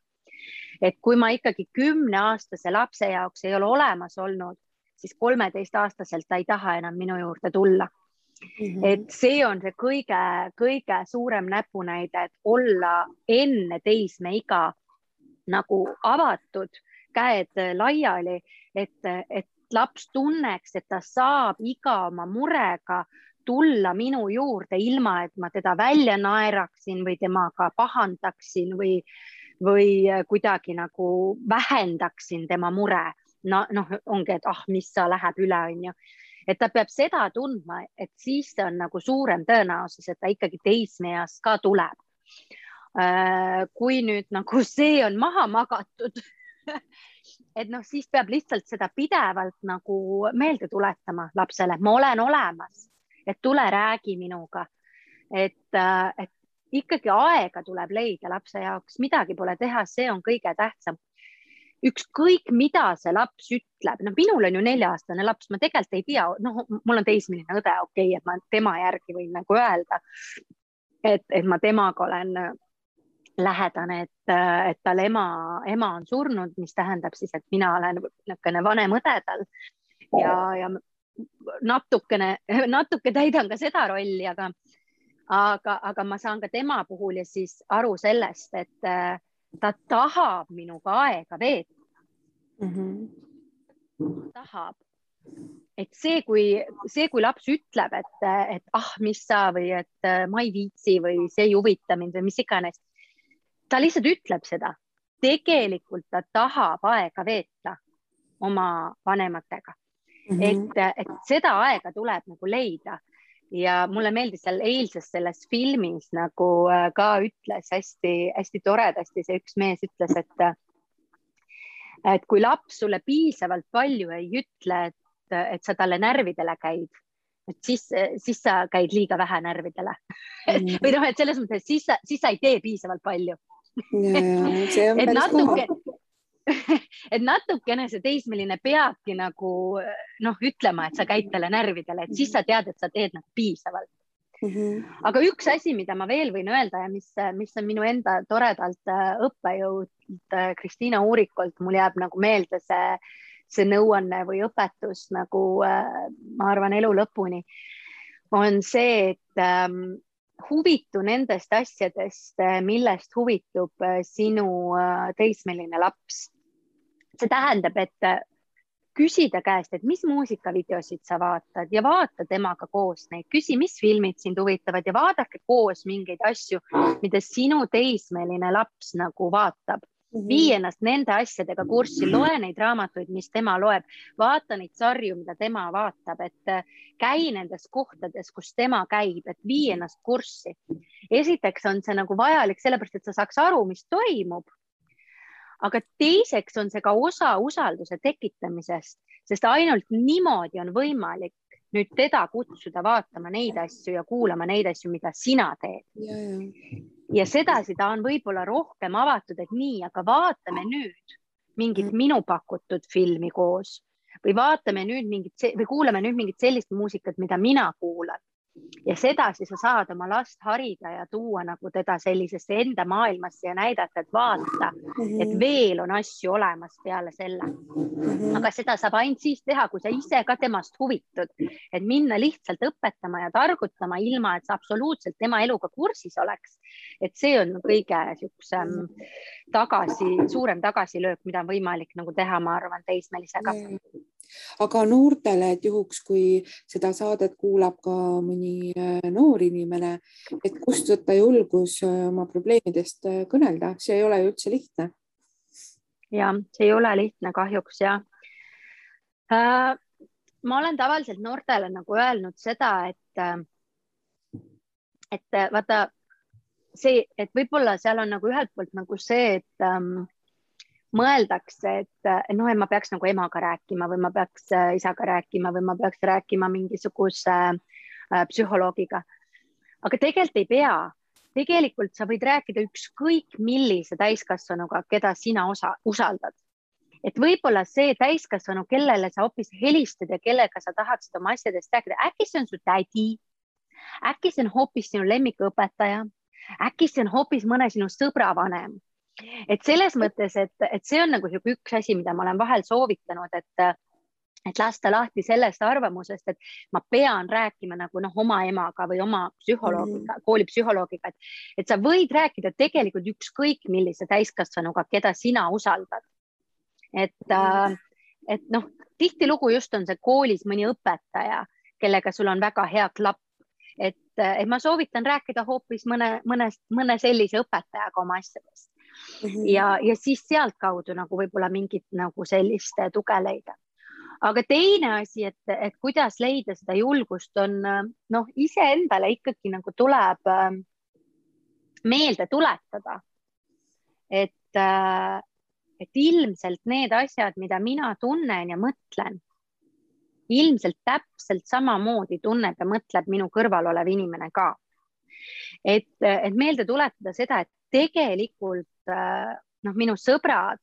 Et kui ma ikkagi 10-aastase lapse jaoks ei ole olemas olnud, siis 13-aastaselt ta ei taha enam minu juurde tulla. Et see on see kõige suurem näpunäide, et olla enne teismeiga nagu avatud, käed laiali, et laps tunneks, et ta saab iga oma murega tulla minu juurde ilma, et ma teda välja naeraksin või temaga pahandaksin või kuidagi nagu vähendaksin tema mure. Ongi, et mis sa läheb üle, on ju. Et ta peab seda tundma, et siis on nagu suurem tõenäosus, et ta ikkagi teismeeas ka tuleb. Kui nüüd nagu see on maha magatud, et siis peab lihtsalt seda pidevalt nagu meelde tuletama lapsele, ma olen olemas, et tule räägi minuga, et ikkagi aega tuleb leida lapse jaoks, midagi pole teha, see on kõige tähtsam. Ükskõik, mida see laps ütleb, minul on ju 4-aastane laps, ma tegelikult ei tea, mul on teismeline õde, okei, et ma tema järgi võin nagu öelda, et ma temaga olen lähedane, et tal ema on surnud, mis tähendab siis, et mina olen vanem õde tal ja natuke täidan ka seda rolli, aga ma saan ka tema puhul ja siis aru sellest, et ta tahab minuga aega veeta. tahab. Et see, kui laps ütleb, et mis sa või et ma ei viitsi või see ei huvita mind või mis iganes, ta lihtsalt ütleb seda. Tegelikult ta tahab aega veeta oma vanematega. Et seda aega tuleb nagu leida. Ja mulle meeldis seal eilses selles filmis nagu ka ütles hästi toredasti, see üks mees ütles, et kui laps sulle piisavalt palju ei ütle, et sa talle närvidele käid, et siis sa käid liiga vähe närvidele. Või noh, et selles mõttes, siis sa ei tee piisavalt palju. See on päris kohe. Et natukene see teismeline peabki nagu ütlema, et sa käid talle närvidele, et siis sa tead, et sa teed nagu piisavalt. Aga üks asi, mida ma veel võin öelda ja mis on minu enda toredalt õppejõud Kristiina Uurikult, mul jääb nagu meelde see nõuanne või õpetus nagu ma arvan elu lõpuni, on see, et huvitu nendest asjadest, millest huvitub sinu teismeline laps. See tähendab, et küsida käest, et mis muusikavideosid sa vaatad ja vaata temaga koos neid. Küsi, mis filmid sind huvitavad ja vaadake koos mingeid asju, mida sinu teismeline laps nagu vaatab. Vii ennast nende asjadega kurssi, loe neid raamatuid, mis tema loeb, vaata neid sarju, mida tema vaatab, et käi nendes kohtades, kus tema käib, et vii ennast kurssi. Esiteks on see nagu vajalik sellepärast, et sa saaks aru, mis toimub. Aga teiseks on see ka osa usalduse tekitamisest, sest ainult niimoodi on võimalik nüüd teda kutsuda vaatama neid asju ja kuulama neid asju, mida sina teed. Ja sedasi ta on võib-olla rohkem avatud, et nii, aga vaatame nüüd mingit minu pakutud filmi koos või vaatame nüüd või kuulame nüüd mingit sellist muusikat, mida mina kuulan. Ja sedasi sa saad oma last harida ja tuua nagu teda sellisesse enda maailmasse ja näidata, et vaata, et veel on asju olemas peale selle. Aga seda saab ainult siis teha, kui sa ise ka temast huvitud, et minna lihtsalt õpetama ja targutama ilma, et sa absoluutselt tema eluga kursis oleks. Et see on kõige suurem tagasilöök, mida on võimalik nagu teha, ma arvan, teismelisega. Aga noortele, et juhuks, kui seda saadet kuulab ka mõni noor inimene, et kust võtta julgus oma probleemidest kõnelda, see ei ole ju üldse lihtne. Ja, see ei ole lihtne kahjuks, ja. Ma olen tavaliselt noortele nagu öelnud seda, et vaata see, et võib-olla seal on nagu ühelt poolt nagu see, et mõeldakse, et ma peaks nagu emaga rääkima või ma peaks isaga rääkima või ma peaks rääkima mingisuguse psühholoogiga. Aga tegelikult ei pea. Tegelikult sa võid rääkida ükskõik millise täiskasvanuga, keda sina usaldad. Et võib-olla see täiskasvanu, kellele sa hoopis helistad ja kellega sa tahaksid oma asjadest rääkida, äkki see on su tädi, äkki see on hoopis sinu lemmikõpetaja, äkki see on hoopis mõne sinu sõbra vanem. Et selles mõttes, et see on nagu üks asi, mida ma olen vahel soovitanud, et lasta lahti sellest arvamusest, et ma pean rääkima nagu oma emaga või oma psühholoogiga, koolipsühholoogiga, et sa võid rääkida tegelikult ükskõik millise täiskasvanuga, keda sina usaldad. Et tihtilugu just on see koolis mõni õpetaja, kellega sul on väga hea klapp, et ma soovitan rääkida hoopis mõne sellise õpetajaga oma asjadest. Ja siis sealt kaudu nagu võib-olla mingit nagu sellist tuge leida. Aga teine asi, et kuidas leida seda julgust on, ise endale ikkagi nagu tuleb meelde tuletada, et ilmselt need asjad, mida mina tunnen ja mõtlen, ilmselt täpselt samamoodi tunneb ja mõtleb minu kõrval olev inimene ka. Et meelde tuletada seda, et tegelikult minu sõbrad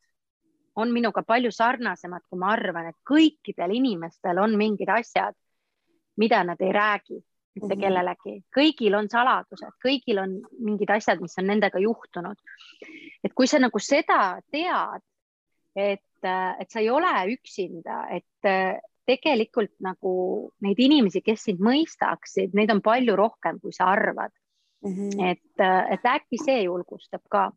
on minuga palju sarnasemad, kui ma arvan, et kõikidel inimestel on mingid asjad, mida nad ei räägi mitte kellelegi. Kõigil on saladused, kõigil on mingid asjad, mis on nendega juhtunud. Et kui sa nagu seda tead, et sa ei ole üksinda, et tegelikult nagu neid inimesi, kes sind mõistaksid, neid on palju rohkem, kui sa arvad. Et äkki see julgustab ka.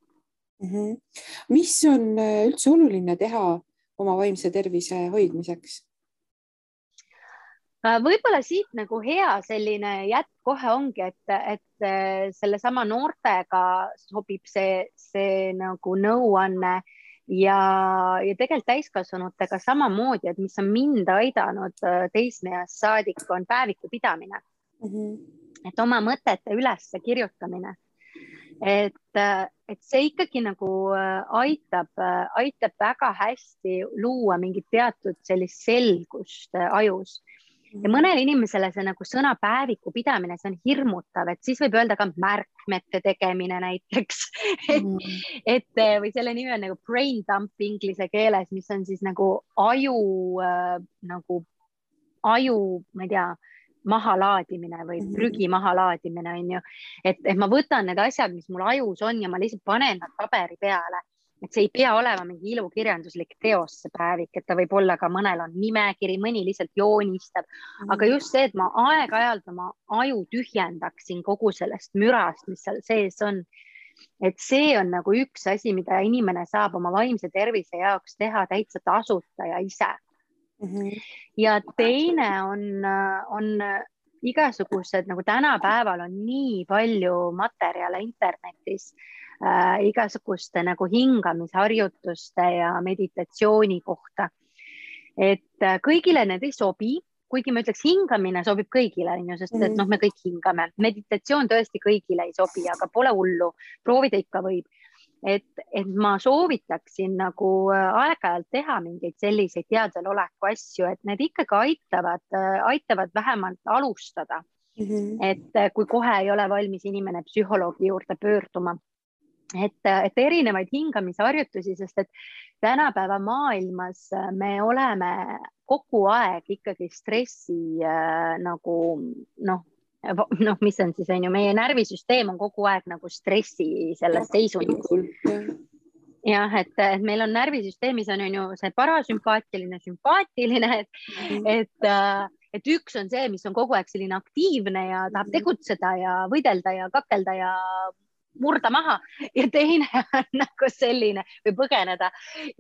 Mis on üldse oluline teha oma vaimse tervise hoidmiseks? Võib-olla siit nagu hea selline jätk kohe ongi, et sellesama noortega sobib see nagu nõuanne ja tegelikult täiskasvanutega samamoodi, et mis on mind aidanud teismeeast saadik, on päeviku pidamine. Et oma mõtete üles kirjutamine. Et see ikkagi nagu aitab väga hästi luua mingit teatud sellist selgust ajus. Ja mõnele inimesele see nagu sõna päeviku pidamine, see on hirmutav, et siis võib öelda ka märkmete tegemine näiteks. Või selle nimi on nagu brain dump inglise keeles, mis on siis nagu aju, ma ei tea, mahalaadimine või prügi mahalaadimine on ju. Et ma võtan need asjad, mis mul ajus on ja ma lihtsalt panen nad paberi peale. Et see ei pea olema mingi ilukirjanduslik teos see päevik, et ta võib olla ka mõnel on nimekiri, mõni lihtsalt joonistab. Aga just see, et ma aeg-ajalt oma aju tühjendaksin kogu sellest mürast, mis seal sees on. Et see on nagu üks asi, mida inimene saab oma vaimse tervise jaoks teha täitsa tasuta ja ise. Ja teine on igasugused, nagu tänapäeval on nii palju materjale internetis, igasuguste nagu hingamisharjutuste ja meditatsiooni kohta. Et kõigile need ei sobi, kuigi ma ütleks, hingamine sobib kõigile, sest et me kõik hingame. Meditatsioon tõesti kõigile ei sobi, aga pole hullu, proovida ikka võib. Et ma soovitaksin nagu aeg-ajalt teha mingeid selliseid teadveloleku asju, et need ikkagi aitavad vähemalt alustada. Et kui kohe ei ole valmis inimene psühholoogi juurde pöörduma. Et erinevaid hingamisharjutusi, sest et tänapäeva maailmas me oleme kogu aeg ikkagi stressi nagu mis on siis, on ju, meie närvisüsteem on kogu aeg nagu stressi selles seisundis. Jah, et meil on närvisüsteemis on ju see parasümpaatiline, sümpaatiline, et üks on see, mis on kogu aeg selline aktiivne ja tahab tegutseda ja võidelda ja kakelda ja murda maha ja teine on nagu selline või põgeneda.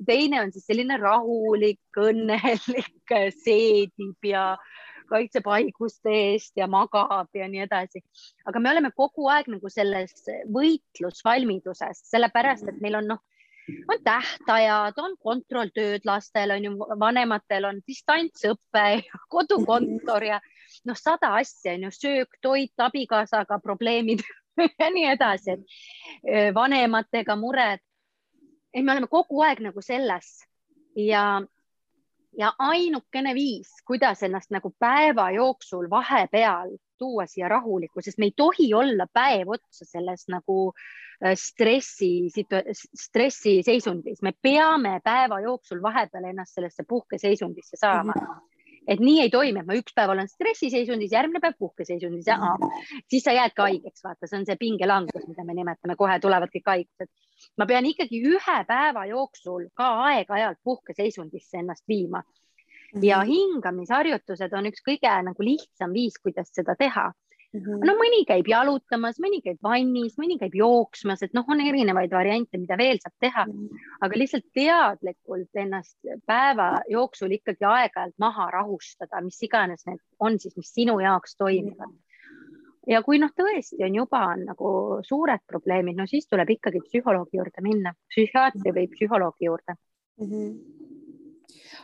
Teine on siis selline rahulik, õnnelik, seedib ja kaitseb haiguste eest ja magab ja nii edasi. Aga me oleme kogu aeg nagu selles võitlusvalmiduses, sellepärast, et meil on tähtajad, on kontrolltööd lastel, on ju, vanematel on distantsõppe, kodukontor ja 100 asja, on ju, söök, toit, abikaasaga probleemid ja nii edasi, et vanematega mured. Me oleme kogu aeg nagu selles ja ainukene viis, kuidas ennast nagu päeva jooksul vahepeal tuua siia rahulikku, sest me ei tohi olla päev otsa selles nagu stressi seisundis. Me peame päeva jooksul vahepeal ennast sellesse puhkeseisundisse saama. Et nii ei toimi, et ma üks päev olen stressiseisundis, järgmine päev puhkeseisundis ja siis sa jääd ka haigeks, vaata, see on see pingelangus, mida me nimetame, kohe tulevad kõik haigused. Ma pean ikkagi ühe päeva jooksul ka aeg-ajalt puhkeseisundisse ennast viima. Ja hingamisharjutused on üks kõige nagu lihtsam viis, kuidas seda teha. Mõni käib jalutamas, mõni käib vannis, mõni käib jooksmas, et on erinevaid variante, mida veel saab teha, aga lihtsalt teadlikult ennast päeva jooksul ikkagi aeg-ajalt maha rahustada, mis iganes need on siis, mis sinu jaoks toimivad. Ja kui tõesti on juba nagu suured probleemid, siis tuleb ikkagi psühholoogi juurde minna, psühhiaatri või psühholoogi juurde.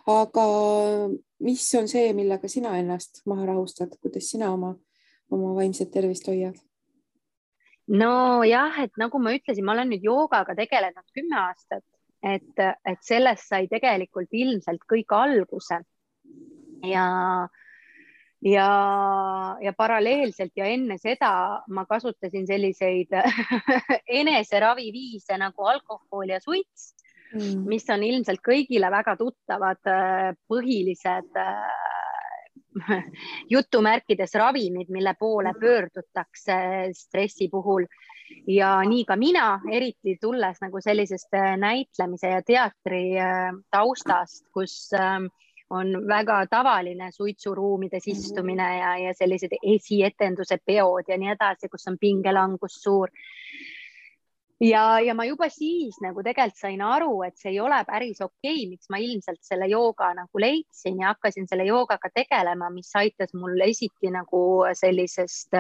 Aga mis on see, millega sina ennast maha rahustad, kuidas sina oma vaimset tervist hoiad? No jah, et nagu ma ütlesin, ma olen nüüd joogaga tegelenud 10 aastat, et sellest sai tegelikult ilmselt kõik alguse ja paralleelselt ja enne seda ma kasutasin selliseid eneseraviviise nagu alkohol ja suits, mis on ilmselt kõigile väga tuttavad põhilised jutumärkides ravimid, mille poole pöördutakse stressi puhul. Ja nii ka mina, eriti tulles nagu sellisest näitlemise ja teatri taustast, kus on väga tavaline suitsuruumides istumine ja sellised esietenduse peod ja nii edasi, kus on pingelangus suur. ja ma juba siis nagu tegelikult sain aru, et see ei ole päris okei, miks ma ilmselt selle jooga nagu leidsin ja hakkasin selle joogaga tegelema, mis aitas mul esiti nagu sellisest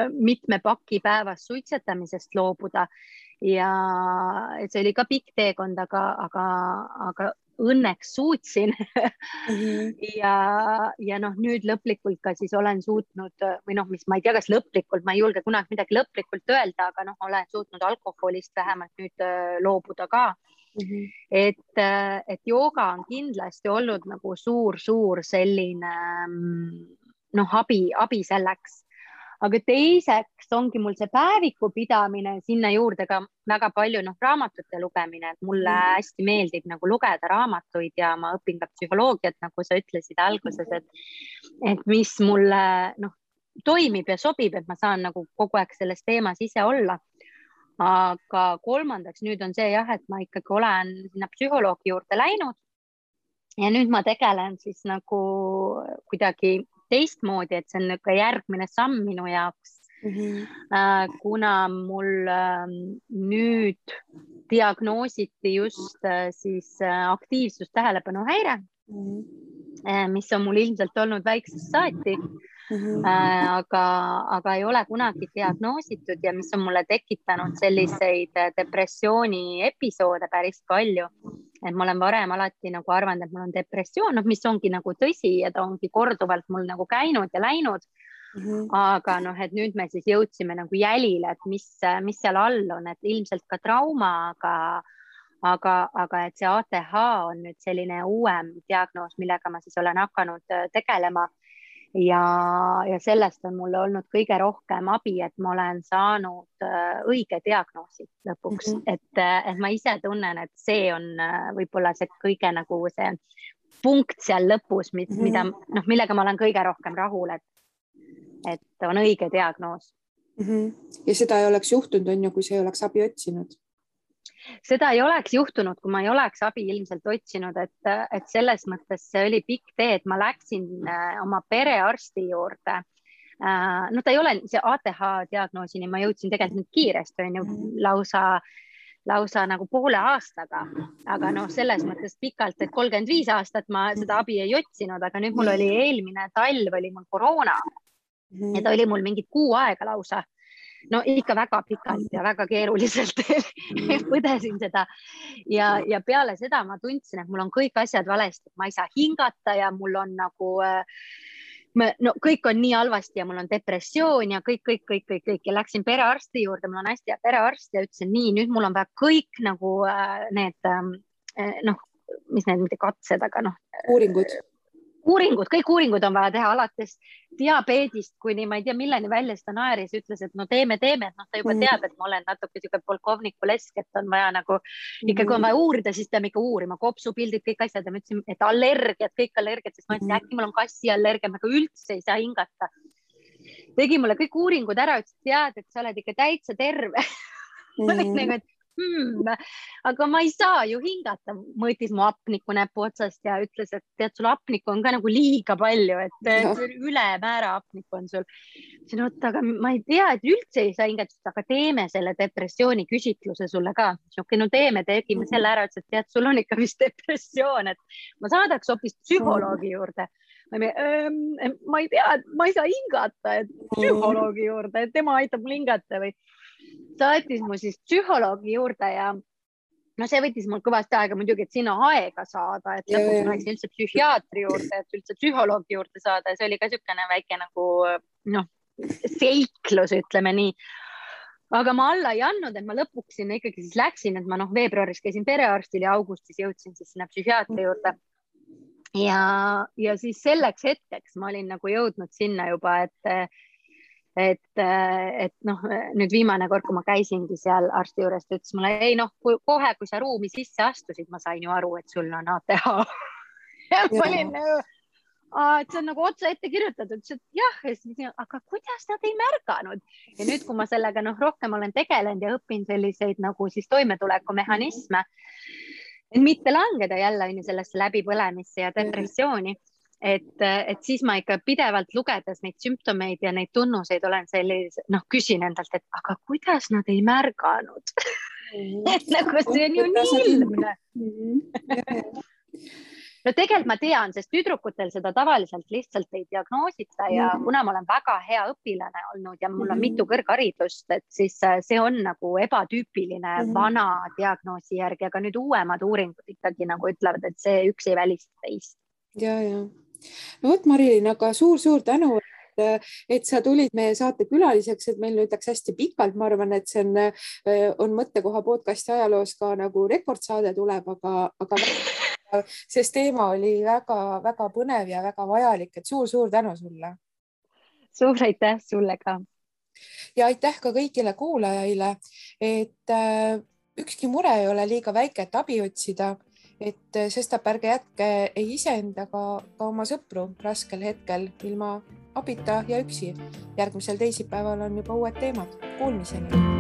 mitme paki päevas suitsetamisest loobuda. Ja see oli ka pikk teekond, aga õnneks suutsin. ja noh, nüüd lõplikult ka siis olen suutnud või noh, mis ma ei tea, kas lõplikult, ma ei julge kunagi midagi lõplikult öelda, aga noh, olen suutnud alkoholist vähemalt nüüd loobuda ka. Et jooga on kindlasti olnud nagu suur selline noh, abi selleks. Aga teiseks ongi mul see päeviku pidamine, sinna juurde ka väga palju raamatute lugemine, et mulle hästi meeldib nagu lugeda raamatuid ja ma õpin ka psühholoogiat, nagu sa ütlesid alguses, et mis mulle toimib ja sobib, et ma saan nagu kogu aeg selles teemas ise olla. Aga kolmandaks nüüd on see jah, et ma ikkagi olen sinna psühholoogi juurde läinud ja nüüd ma tegelen siis nagu kuidagi teistmoodi, et see on ka järgmine samm minu jaoks, kuna mul nüüd diagnoositi just siis aktiivsustähelepanuhäire, mis on mul ilmselt olnud väiksest saati, aga ei ole kunagi diagnoositud ja mis on mulle tekitanud selliseid depressiooni episoode päris palju. Et ma olen varem alati nagu arvanud, et mul on depressioon, mis ongi nagu tõsi ja ta ongi korduvalt mul nagu käinud ja läinud. Aga et nüüd me siis jõudsime nagu jälile, et mis seal all on, et ilmselt ka trauma, aga et see ATH on nüüd selline uuem diagnoos, millega ma siis olen hakanud tegelema. Ja sellest on mulle olnud kõige rohkem abi, et ma olen saanud õige diagnoosi lõpuks, et ma ise tunnen, et see on võib-olla see kõige nagu see punkt seal lõpus, millega ma olen kõige rohkem rahul, et on õige diagnoos. Ja seda ei oleks juhtunud, on ju, kui sa ei oleks abi otsinud? Seda ei oleks juhtunud, kui ma ei oleks abi ilmselt otsinud, et selles mõttes see oli pikk tee, et ma läksin oma perearsti juurde. No ta ei ole see ATH diagnoosini, ma jõudsin tegelikult kiiresti, on ju, lausa nagu poole aastaga, aga selles mõttes pikalt, et 35 aastat ma seda abi ei otsinud, aga nüüd mul oli eelmine talv oli mul koroona ja ta oli mul mingid kuu aega lausa. No ikka väga pikalt ja väga keeruliselt põdesin seda ja peale seda ma tundsin, et mul on kõik asjad valesti, ma ei saa hingata ja mul on nagu kõik on nii halvasti ja mul on depressioon ja kõik ja läksin perearsti juurde, mul on hästi hea perearst ja ütlesin nii, nüüd mul on vaja kõik nagu need mis need mitte katsed, aga kõik uuringud on vaja teha alates diabeedist kuni ma ei tea milleni välja, seda naeris ütles, et teeme, et ta juba teab, et ma olen natuke siuke polkovniku lesk, et on vaja nagu ikka kui on vaja uurida, siis peame ikka uurima, kopsupildid, kõik asjad ja ma ütlesin, et allergiad, kõik allergiad, sest ma ütlesin, äkki mul on kassiallergia, aga üldse ei saa hingata. Tegi mulle kõik uuringud ära, ütles, et tead, et sa oled ikka täitsa terve. Ma olin nagu, et aga ma ei saa ju hingata, mõõtis mu hapniku näpu otsast ja ütles, et tead, sul hapniku on ka nagu liiga palju, et ülemäära hapniku on sul. Aga ma ei tea, et üldse ei saa hingata, aga teeme selle depressiooni küsitluse sulle ka. Tegime selle ära, et tead, sul on ikka vist depressioon, et ma saadaks hoopis psühholoogi juurde. Ma ei tea, ma ei saa hingata, et psühholoogi juurde, et tema aitab mul hingata või saatis mu siis psühholoogi juurde ja see võttis mul kõvasti aega muidugi, et sinna aega saada, et lõpuks ma läksin üldse psühhiaatri juurde, et üldse psühholoogi juurde saada ja see oli ka niisugune väike nagu seiklus, ütleme nii. Aga ma alla ei andnud, et ma lõpuks sinna ikkagi siis läksin, et ma veebruaris käisin perearstil ja augustis jõudsin siis sinna psühhiaatri juurde. Ja siis selleks hetkeks ma olin nagu jõudnud sinna juba, et nüüd viimane kord, kui ma käisingi seal arsti juures, ta ütles mulle, kohe, kui sa ruumi sisse astusid, ma sain ju aru, et sul on ATH. Ja ma olin, et see on nagu otsa ette kirjutatud, et jah, aga kuidas nad ei märganud? Ja nüüd, kui ma sellega rohkem olen tegelenud ja õpin selliseid nagu siis toimetulekumehhanisme, et mitte langeda jälle sellesse läbipõlemisse ja depressiooni, et siis ma ikka pidevalt lugedes neid sümptomeid ja neid tunnuseid olen sellise, küsin endalt, et aga kuidas nad ei märganud et nagu see on ju nii ilmne. No tegelikult ma tean, sest tüdrukutel seda tavaliselt lihtsalt ei diagnoosita ja kuna ma olen väga hea õpilane olnud ja mul on mitu kõrgharidust, et siis see on nagu ebatüüpiline vana diagnoosi järgi, aga nüüd uuemad uuringud ikkagi nagu ütlevad, et see üks ei välista teist. Ja. No vot, Marilyn, aga suur tänu, et sa tulid meie saate külaliseks, et meil nüüd läks hästi pikalt, ma arvan, et see on mõttekoha podcasti ajaloos ka nagu rekordsaade tuleb, aga sest teema oli väga põnev ja väga vajalik, et suur tänu sulle. Suur aitäh sulle ka. Ja aitäh ka kõigile kuulajaile, et ükski mure ei ole liiga väike, et abi otsida, et sestap ärge jätke ei iseendaga ka oma sõpru raskel hetkel ilma abita ja üksi. Järgmisel teisipäeval on juba uued teemad. Kuulmiseni!